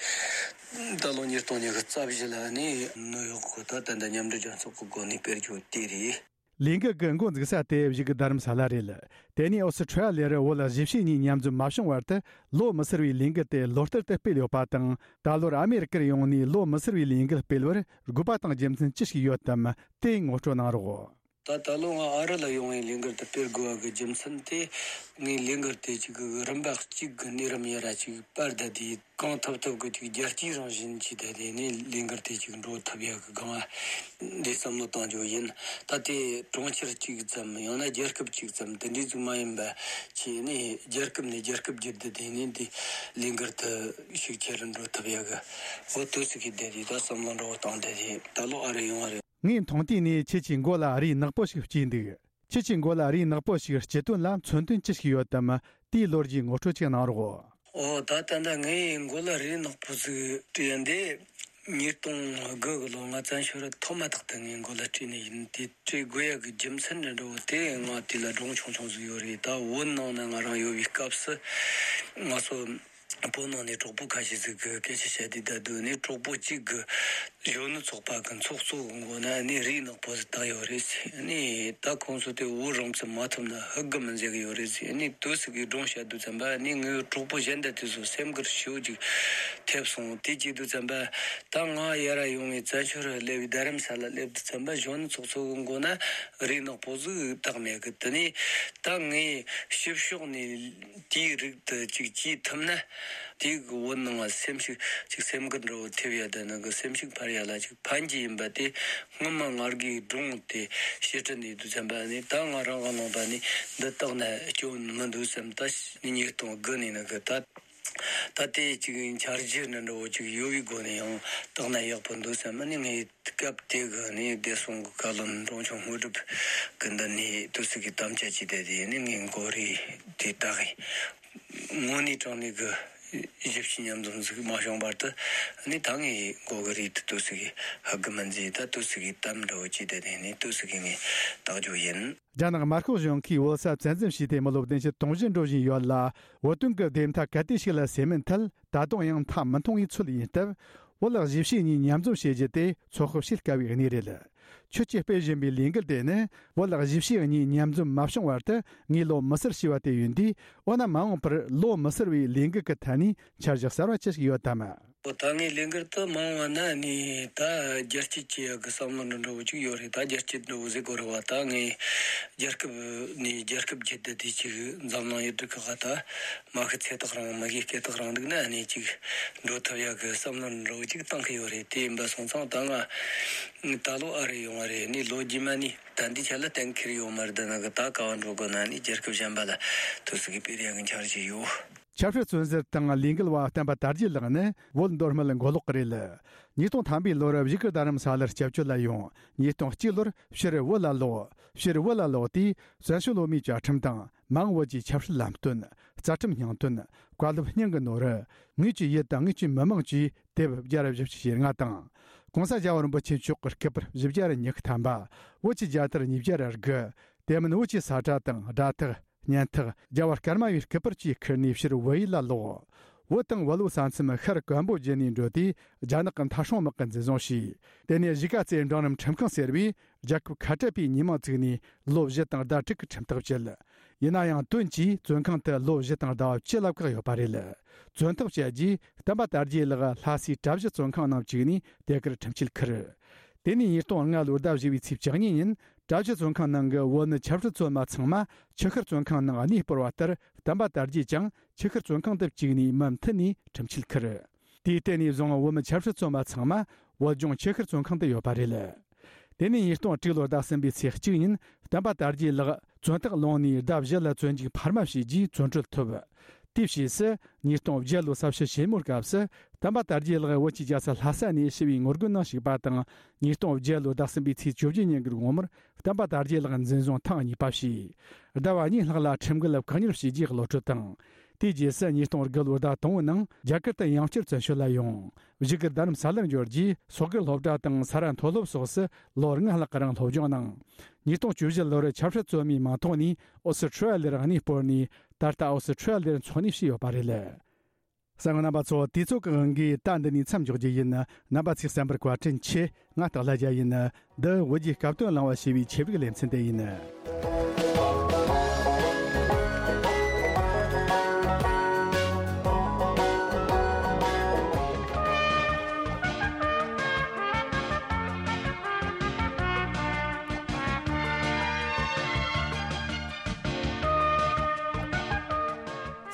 ད་ལོ་ཉིས་སྟོང་ཉི་ཤུ་རྩ་བཞི་ལ་ནི་ནིའུ་ཡོག་གི་ད་ད་ལྟ་མཉམ་འབྲེལ་རྒྱལ་ཚོགས་ཀྱི་སྒོ་ནས་སྤེལ་རྒྱུ་དེ་རེད། ལས་འགུལ་གྱི་འགོ་འཛུགས་ས་དེ་བཞུགས་རྡ་རམ་ས་ལ་རེད། དེ་ནས་ཨོ་སི་ཁྲུ་ལི་ཡར་བོད་གཞིས་བྱེས་གཉིས་མཉམ་འཛོམས་མ་བྱུང་བར་དུ་ལོ་མི་སེར་བའི་ལས་འགུལ་དེ་ལོ་ལྟར་དུ་སྤེལ་ཡོད་པ་དང་། ད་ལོར་ཨ་མེ་རི་ཀར་ཡོང་ནས་ལོ་མི་སེར་བའི་ལས་འགུལ་སྤེལ་བར་དགོས་པ་དང་རྒྱུ་མཚན་ཅི་ཞིག་ཡོད་དམ། དེ་ངོ་སྤྲོད་གནང་རོགས། ད་ད་ལོ་ང་ཨ་རི་ལ་ཡོང་བའི་ལས་འགུལ་དེ་སྤེལ་དགོས་པ་གི་རྒྱུ་མཚན་དེ། ངས་ལས་འགུལ་དེ་གཅིག་གི་རིམ་པ་གཅིག་གི་གནས་རིམ་ཡར་ར་གཅིག་སྤར་བསྡད་དེ། གང་ཐུབ་ཐུབ་ཀྱི་ཅིག་རྒྱལ་སྤྱིའི་རང་བཞིན་གྱི་ད་དེ་ནས་ལས་འགུལ་དེ་ཅིག་འགྲོ་ཐུབ་ཡག་གི་སྒང་ང་འདི་བསམ་བློ་གཏོང་རྒྱུ་ཡིན། ད་ལྟའི་གྲོང་ཁྱེར་གཅིག་ཙམ་ཡང་ན་རྒྱལ་ཁབ་གཅིག་ཙམ་དེ་འདྲའི་ཟིག་མ་ཡིན་པ་བྱས་ནས་རྒྱལ་ཁབ་ནས་རྒྱལ་ཁབ་བརྒྱུད་དེ་དེ་ནས་འདི་ལས་འགུལ་དེ་ཤུགས་ཆེ་རུ་འགྲོ་ཐུབ་ཡག་གི་འོ་དུས་སུ་གི་བསྡད་དེ་ད་བསམ་བློ་འགྲོ་བཏང་བསྡད་དེ་ད་ལོ་ཨ་རི་ཡོང་བ་རེད། ངའི་མཐོང་ཐོས་ནས་ཁྱེད་ཀྱི་མགོ་ལ་རིགས་ནག་པོ་ཞིག་སྐྱེས་འདུག་ཁྱེད་ཀྱི་མགོ་ལ་རིགས་ནག་པོ་ཞིག་སྐྱེས་དོན་ལ་མཚོན་དོན་ཅི་ཞིག་ཡོད་དམ། དེའི་ལོ་རྒྱུས་ངོ་སྤྲོད་ཅིག་གནང་རོགས། ཨོ་ད་ད་ལྟ་ངའི་མགོ་ལ་རིགས་ནག་པོ་ཟིག་སྐྱེས་འདི་ཉིས་སྟོང་དགུ་གི་ལོ་ང་བཙན་བྱོལ་ཐོག་མ་ཐག་ཏུ་ངའི་མགོ་ལ་སྐྱེས་ནི་ཡིན། དེ་སྐྱེ་དགོས་ཡག་གི་རྒྱུ་མཚན་འདྲ་འདྲ་བོ་དེ་ང་དེ་ལ་སྒྲུང་ཆུང་ཆུང་ཟིག་ཡོད་རེད། ད་བོད་ནང་ན་ང་རང་ཡོད་པའི་སྐབས་སུ་ང་ཚོ་བོད་ནང་ནས་གྲོགས་པོ་ཁ་ཤས་ཟིག་གི་སྐད་ཆ་བཤད་དུས། ད་དུང་ནས་གྲོགས་པོ་གཅིག་གི་གཞོན་ནུ་ཚོགས་པ་གི་ཚོགས་གཙོ་གི་མགོ་ན་ནི་རིགས་ནག་པོ་ཟིག་བཏགས་ཡོད་རེད་ཟེར། ནི་ད་ཁོང་ཚོ་དེ་བོད་རང་བཙན་མ་ཐོབ་ན་ཧུག་གི་མི་མཛད་གི་ཡོད་རེད་ཟེར། ནི་དུས་སུ་གི་སྒྲུང་བཤད་དུས་ཙམ་པ་ནི་ངའི་གྲོགས་པོ་གཞན་དག་དེ་ཚོ་སེམས་འགུལ་ཞེ་པོ་ཅིག་ཐེབས་སོང་། དེ་བྱེད་དུས་ཙམ་པ་ད་ང་ཡར་ར་ཡོང་བའི་བཙན་བྱོལ་ར་སླེབས་པའི་རྡ་རམ་ས་ལ་སླེབས་དུས་ཙམ་པ་གཞོན་ནུ་ཚོགས་གཙོ་གི་མགོ་ན་རིགས་ནག་པོ་ཟིག་བཏགས་མེད་གི། དེ་ནི་ད་ངའི་ཕྱི་ཕྱོགས་ནས་དེའི་རིགས་དེ་ཅིག་བྱེད་ཐུབ་ན། དེའི་གི་བོད་ནང་ང་སེམས་ཤུགས་ཅིག་སེམས་འགུལ་འདྲ་བོ་ཐེབས་ཡ་དེ་ནི་གི་སེམས་ཤུགས་འཕར་ཡ་ལ་ཅིག་ཕན་གྱི་ཡིན་པ་དེ་སྔོན་མ་ང་རྒྱའི་སྒྲུང་དེ་བཤད་ཁྲིད་ནས་དུས་ཙམ་པ་ནི་ད་ང་རང་གི་ནང་པ་ནི་འདི་བཏགས་ན་སྐྱོན་མི་འདུག་བསམ། ད་ནི་ཉིས་སྟོང་དགུ་ནས་ནི་གི་ད་ད་དེ་ཅིག་འཆར་གཞི་འདྲ་འདྲ་བོ་ཅིག་ཡོད་པའི་སྒོ་ནས་ཡང་བཏགས་ན་ཡག་པོ་འདུག་བསམ། ནི་ངས་སྐབས་དེ་གི་ནི་བདེ་སྲུང་གི་བཀའ་བློན་འབྲོང་ཆུང་དངོས་གྲུབ་གི་མདུན་ནས་དུས་སུ་གི་དམ་བཅའ་བྱས་ཏེ། དེ་ནི་ངའི་མགོ་རིལ་དེ་བཏགས་ཡིན། དངོས་གནས་དྲང་གནས་ཀྱི་གཞིས་བྱེས་མཉམ་འཛོམས་ཟིག་མ་བྱུང་བར་དུ་ནི་ད་ངའི་མགོ་གི་རིལ་དེ་དུས་སུ་གི་ཧུག་གི་མི་མཛད། ད་དུས་སུ་གི་གཏམ་འདྲ་བོ་བྱས་ཏེ་དེ་ནི་དུས་སུ་གི་ངས་བཏགས་རྒྱུ་ཡིན། རྒྱ་ནག་དམར་ཤོག་གཞུང་གིས་བོད་ས་བཙན་འཛུལ་བྱས་ཏེ་མི་ལོ་བདུན་ཅུ་དོན་བཞི་འགྲོ་བཞིན་ཡོད་ལ། བོད་དོན་གྱི་བདེན་མཐའ་གལ་ཏེ་ཞིག་ལ་སེལ་མིན་ཐད་ད་དུང་ཡང་མཐའ་མི་མཐོང་བའི་ཚོད་ཡིན་སྟབས། བོད་གཞིས་བྱེས་གཉིས་མཉམ་འཛོམས་བྱེད་རྒྱུ་དེ་ཚོད་དཔག་བྱེད་དཀའ་བའི་གནས་རེད། ཁྱོད་ཀྱིས་སྤེལ་བཞིན་པའི་ལས་འགུལ་དེ་ནི་བོད་གཞིས་བྱེས་གཉིས་མཉམ་འཛོམས་མ་བྱུང་བར་དུ་ངས་ལོ་མི་སེར་ཞེས་པ་དེ་ཡིན་དུས། འོ་ན་མ་འོངས་པར་ལོ་མི་སེར་བའི་ལས་འགུལ་གྱི་ཐད་ནས་འཆར་གཞི་གསར་བ་ཅི་ཞིག་ཡོད་དམ། ཨོ། ད་ངའི་ལས་འགུལ་དུ་མང་བ་ན་ནི་ད་རྒྱལ་སྤྱི་ཆེ་ཡག་གི་བསམ་བློ་འདྲ་འདྲ་བོ་ཅིག་ཡོད་རེད། ད་རྒྱལ་སྤྱི་འདྲ་བོ་ཟེར་དགོས་རེད་བ། ད་ངའི་རྒྱལ་ཁབ་ནས་རྒྱལ་ཁབ་བརྒྱུད་དུ་དེ་ཅིག་འཛམ་གླིང་ཡུལ་གྲུ་ཁག་ད་མ་ཤི་ཚེ་ཐག་རིང་མི་ཤི་སྐེ་ཐག་རིང་འདུག་ན་ནི་ཅིག་འགྲོ་ཐུབ་ཡག་གི་བསམ་བློ་འདྲ་བོ་ཅིག་བཏང་གི་ཡོད་རེད། དེ་ཡིན་པ་སོང་ཙང་ད་ང་ད་ལོ་ཨ་རི་ཡོང་བ་རེད། ནི་ལོ་རྗེས་མ་ནི་ད་འདི་ཆ་ལ་གཏན་འཁེལ་ཡོད་མ་རེད། ད་ནང་གི་ད་ག་བ་འགྲོ་དགོས་ན་ནི་རྒྱལ་ཁབ་གཞན་པ་ལ་ཐུག་སྲིད་གི་སྤེལ་ཡག་གི་འཆར་གཞི་ཡོད། ཆབ་སྲིད་བཙོན་ཟུར་དང་ལས་འགུལ་བ་བསྟན་པ་དར་རྒྱས་ལགས་ནི་བོད་མདོ་སྨད་མགོ་ལོག་གི་རེད། ཉིས་སྟོང་ཐམ་པའི་ལོར་བཞུགས་སྒར་རྡ་རམ་ས་ལར་སྐྱབས་བཅོལ་ལ་ཡོང་། ཉིས་སྟོང་གཅིག་ལོར་ཕྱིར་བོད་ལ་ལོག་ཕྱིར་བོད་ལ་ལོག་དུས་བཙན་བྱོལ་བོད་མིའི་བཅའ་ཁྲིམས་དང་མ་འོངས་བོད་ཀྱི་ཆབ་སྲིད་ལམ་སྟོན། རྩ་ཁྲིམས་སྙིང་དོན། བཀའ་སློབ་སྙིང་གི་ནོར། ངེད་ཀྱི་ཡུལ་དང་ངེད་ཀྱི་མི་དམངས་ཀྱི་དེབ་བརྒྱ་དང་བཞི་བཅུ་ཞེ་ལྔ་དང་། གོང་ས་རྒྱལ་བ་རིན་པོ་ཆེ་མཆོག་གི་སྐུ་པར་བཞི་བརྒྱ་དང་ཉི་ཤུ་ཐམ་པ། བོད་ཀྱི་རྒྱལ་དར་ཉིས་བརྒྱ་དང་དགུ། དེ་མིན་བོད་ཀྱི་ས་ཁྲ་དང་སྒྲ་ཐག་སྙན་ཐག་རྒྱལ་བ་སྐར་མ་བའི་སྐུ་པར་བཅས་ཁུར་ནས་ཕྱིར་བོད་ཡུལ་ལ་ལོག་བོད་དང་བོད་ལུགས་ས་མཚམས་ཤར་ཀམ་བོ་ཇི་ནས་འགྲོ་དུས་རྒྱ་ནག་གི་མཐའ་སྲུང་དམག་གིས་འཛིན་བཟུང་བྱས། དེ་ནས་གཞིས་ཀ་རྩེའི་འབྲིང་རིམ་ཁྲིམས་ཁང་ཟེར་བའི་རྒྱལ་ཁབ་ཁ་བྲལ་པའི་ཉིན་མོ་བཙུགས་ནས་ལོ་བཞི་དང་ཟླ་དྲུག་གི་ཁྲིམས་ཐག་བཅད། ཡིན་ན་ཡང་དོན་གྱིས་བཙོན་ཁང་དུ་ལོ་བཞི་དང་ཟླ་བ་བཅུ་ལ་བཀག་ཡོད་པ་རེད། བཙོན་ཐག་བཅད་རྗེས་བསྟན་པ་དར་རྒྱས་ལགས་ལྷ་སའི་གྲྭ་བཞི་བཙོན་ཁང་ནང་བཅུག་ནས་དེ་གར་ཁྲིམས་ཆད་ཁུར། དེ་ནས་ཉིས་སྟོང་ལྔ་ལོའི་ཟླ་བཞི་བའི་ཚེས་བཅུ་གཉིས་ཉིན་གྲྭ་བཞི་བཙོན་ཁང་ནང་གི་བོད་ནི་ཆབ་སྲིད་བཙོན་པ་ཚང་མ་ཆུ་ཤུར་བཙོན་ཁང་ནང་གནས་སྤོར་བ་ལྟར་བསྟན་པ་དར་རྒྱས་ཀྱང་ཆུ་ཤུར་བཙོན་ཁང་དུ་བཅུག་ནས་མུ་མཐུད་ནས་ཁྲིམས་ཆད་ཁུར། དེའི་སྟེང་ནས་བཟུང་བོད་མི་ཆབ་སྲིད་བཙོན་པ་ཚང་མ་བོད་ལྗོངས་ཆུ་ཤུར་བཙོན་ཁང་དུ་ཡོད་པ་རེད། དེ་ནས་ཉིས་སྟོང་དྲུག་ལོར་ཟླ་གསུམ་པའི་ཚེས་གཅིག་ཉིན་བསྟན་པ་དར་རྒྱས་ལགས་བཙོན་ཐག་ལོངས་ནས་ཟླ་བཞི་ལ་བཙོན་འཇུག་འཕར་མ་བྱས་རྗེས་བཙོན་གྲོལ་ཐོབ། དེའི་ཕྱིས་སུ་ཉིས་སྟོང་བརྒྱད་ལོའི་ས་བྱི་ཞེ་མོའི་སྐབས་སུ་བསྟན་པ་དར་རྒྱས་ལགས་བོད་ཀྱི་རྒྱལ་ས་ལྷ་ས་ནས་ཞི་བའི་ངོ་རྒོལ་ནང་ཞུགས་པ་དང་། ཉིས་སྟོང་བརྒྱད་ལོའི་ཟླ་གསུམ་པའི་ཚེས་བཅུ་བཞི་ཉིན་གྱི་དགོང་མོར་བསྟན་པ་དར་རྒྱས་ལགས་འཛིན་བཟུང་ཐེངས་གཉིས་པ་བྱས། ཟླ་བ་གཉིས་ལྷག་ལ་ཁྲིམས་འགལ་བཀག་ཉར་བྱས་རྗེས་གློད་གྲོལ་བཏང་། དེའི་རྗེས་སུ་ཉིས་སྟོང་དགུ་ལོའི་ཟླ་དང་པོའི་ནང་རྒྱ་གར་དུ་ཡང་བསྐྱར་བཙན་བྱོལ་ལ་ཡོང་། བཞུགས་སྒར་རྡ་རམ་ས་ལར་འབྱོར་རྗེས་སོག་སྒར་སློབ་གྲྭ་དང་ས་རཱ་མཐོ་སློབ་སོགས་སུ་ལོ་ལྔ་ལྷག་རིང་སློབ་སྦྱོང་གནང་། ཉིས་སྟོང་བཅུ་བཞི་ལོར་ཆབ་སྲིད་བཙོན་མའི་མིང་ཐོག་ནས་ཨོ་སི་ཁྲུ་ལི་ཡར་གནས་སྤོར་ནས་ད་ལྟ་ཨོ་སི་ཁྲུ་ལི་ཡར་འཚོ་གནས་བྱས་ཡོད་པ་རེད། གསན་མཁན་རྣམ་པ་ཚོ། དུས་ཚོད་ཀྱི་དབང་གིས་ད་འདི་ནས་མཚམས་འཇོག་རྒྱུ་ཡིན། རྣམ་པ་ཚོས་གསན་པར་བཀའ་དྲིན་ཆེ། ང་སྟག་ལྷ་རྒྱལ་ཡིན། འདི་བོད་ཀྱི་སྐབས་དོན་གླེང་བ་ཞེས་པའི་ཆེད་ཡིག་ལེ་ཚན་དེ་ཡིན།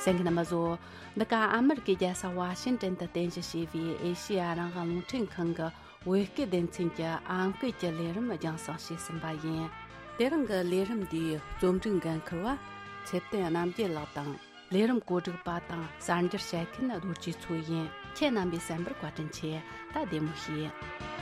གསན་མཁན་རྣམ་པ་ཚོ། འདི་ག་ཨ་མེ་རི་ཀའི་རྒྱལ་ས་ཝ་ཤིང་ཏན་དུ་རྟེན་གཞི་བྱས་པའི་ཨེ་ཤེ་ཡ་རང་དབང་རླུང་འཕྲིན་ཁང་གི་བོད་སྐད་སྡེ་ཚན་གྱི་ཨམ་སྐད་ཀྱི་ལས་རིམ་རྒྱང་སྲིང་བྱས་ཟིན་པ་ཡིན། དེ་རིང་གི་ལས་རིམ་འདིའི་རྩོམ་སྒྲིག་འགན་འཁུར་བ་ཚེ་བརྟན་རྣམ་རྒྱལ་ལགས་དང་། ལས་རིམ་གོ་སྒྲིག་པ་དང་གསར་འགྱུར་བཤད་མཁན་རྡོ་རྗེ་མཚོ་ཡིན། ཁྱེད་རྣམ་པས་གསན་པར་བཀའ་དྲིན་ཆེ། ད་བདེ་མོ་བྱོས།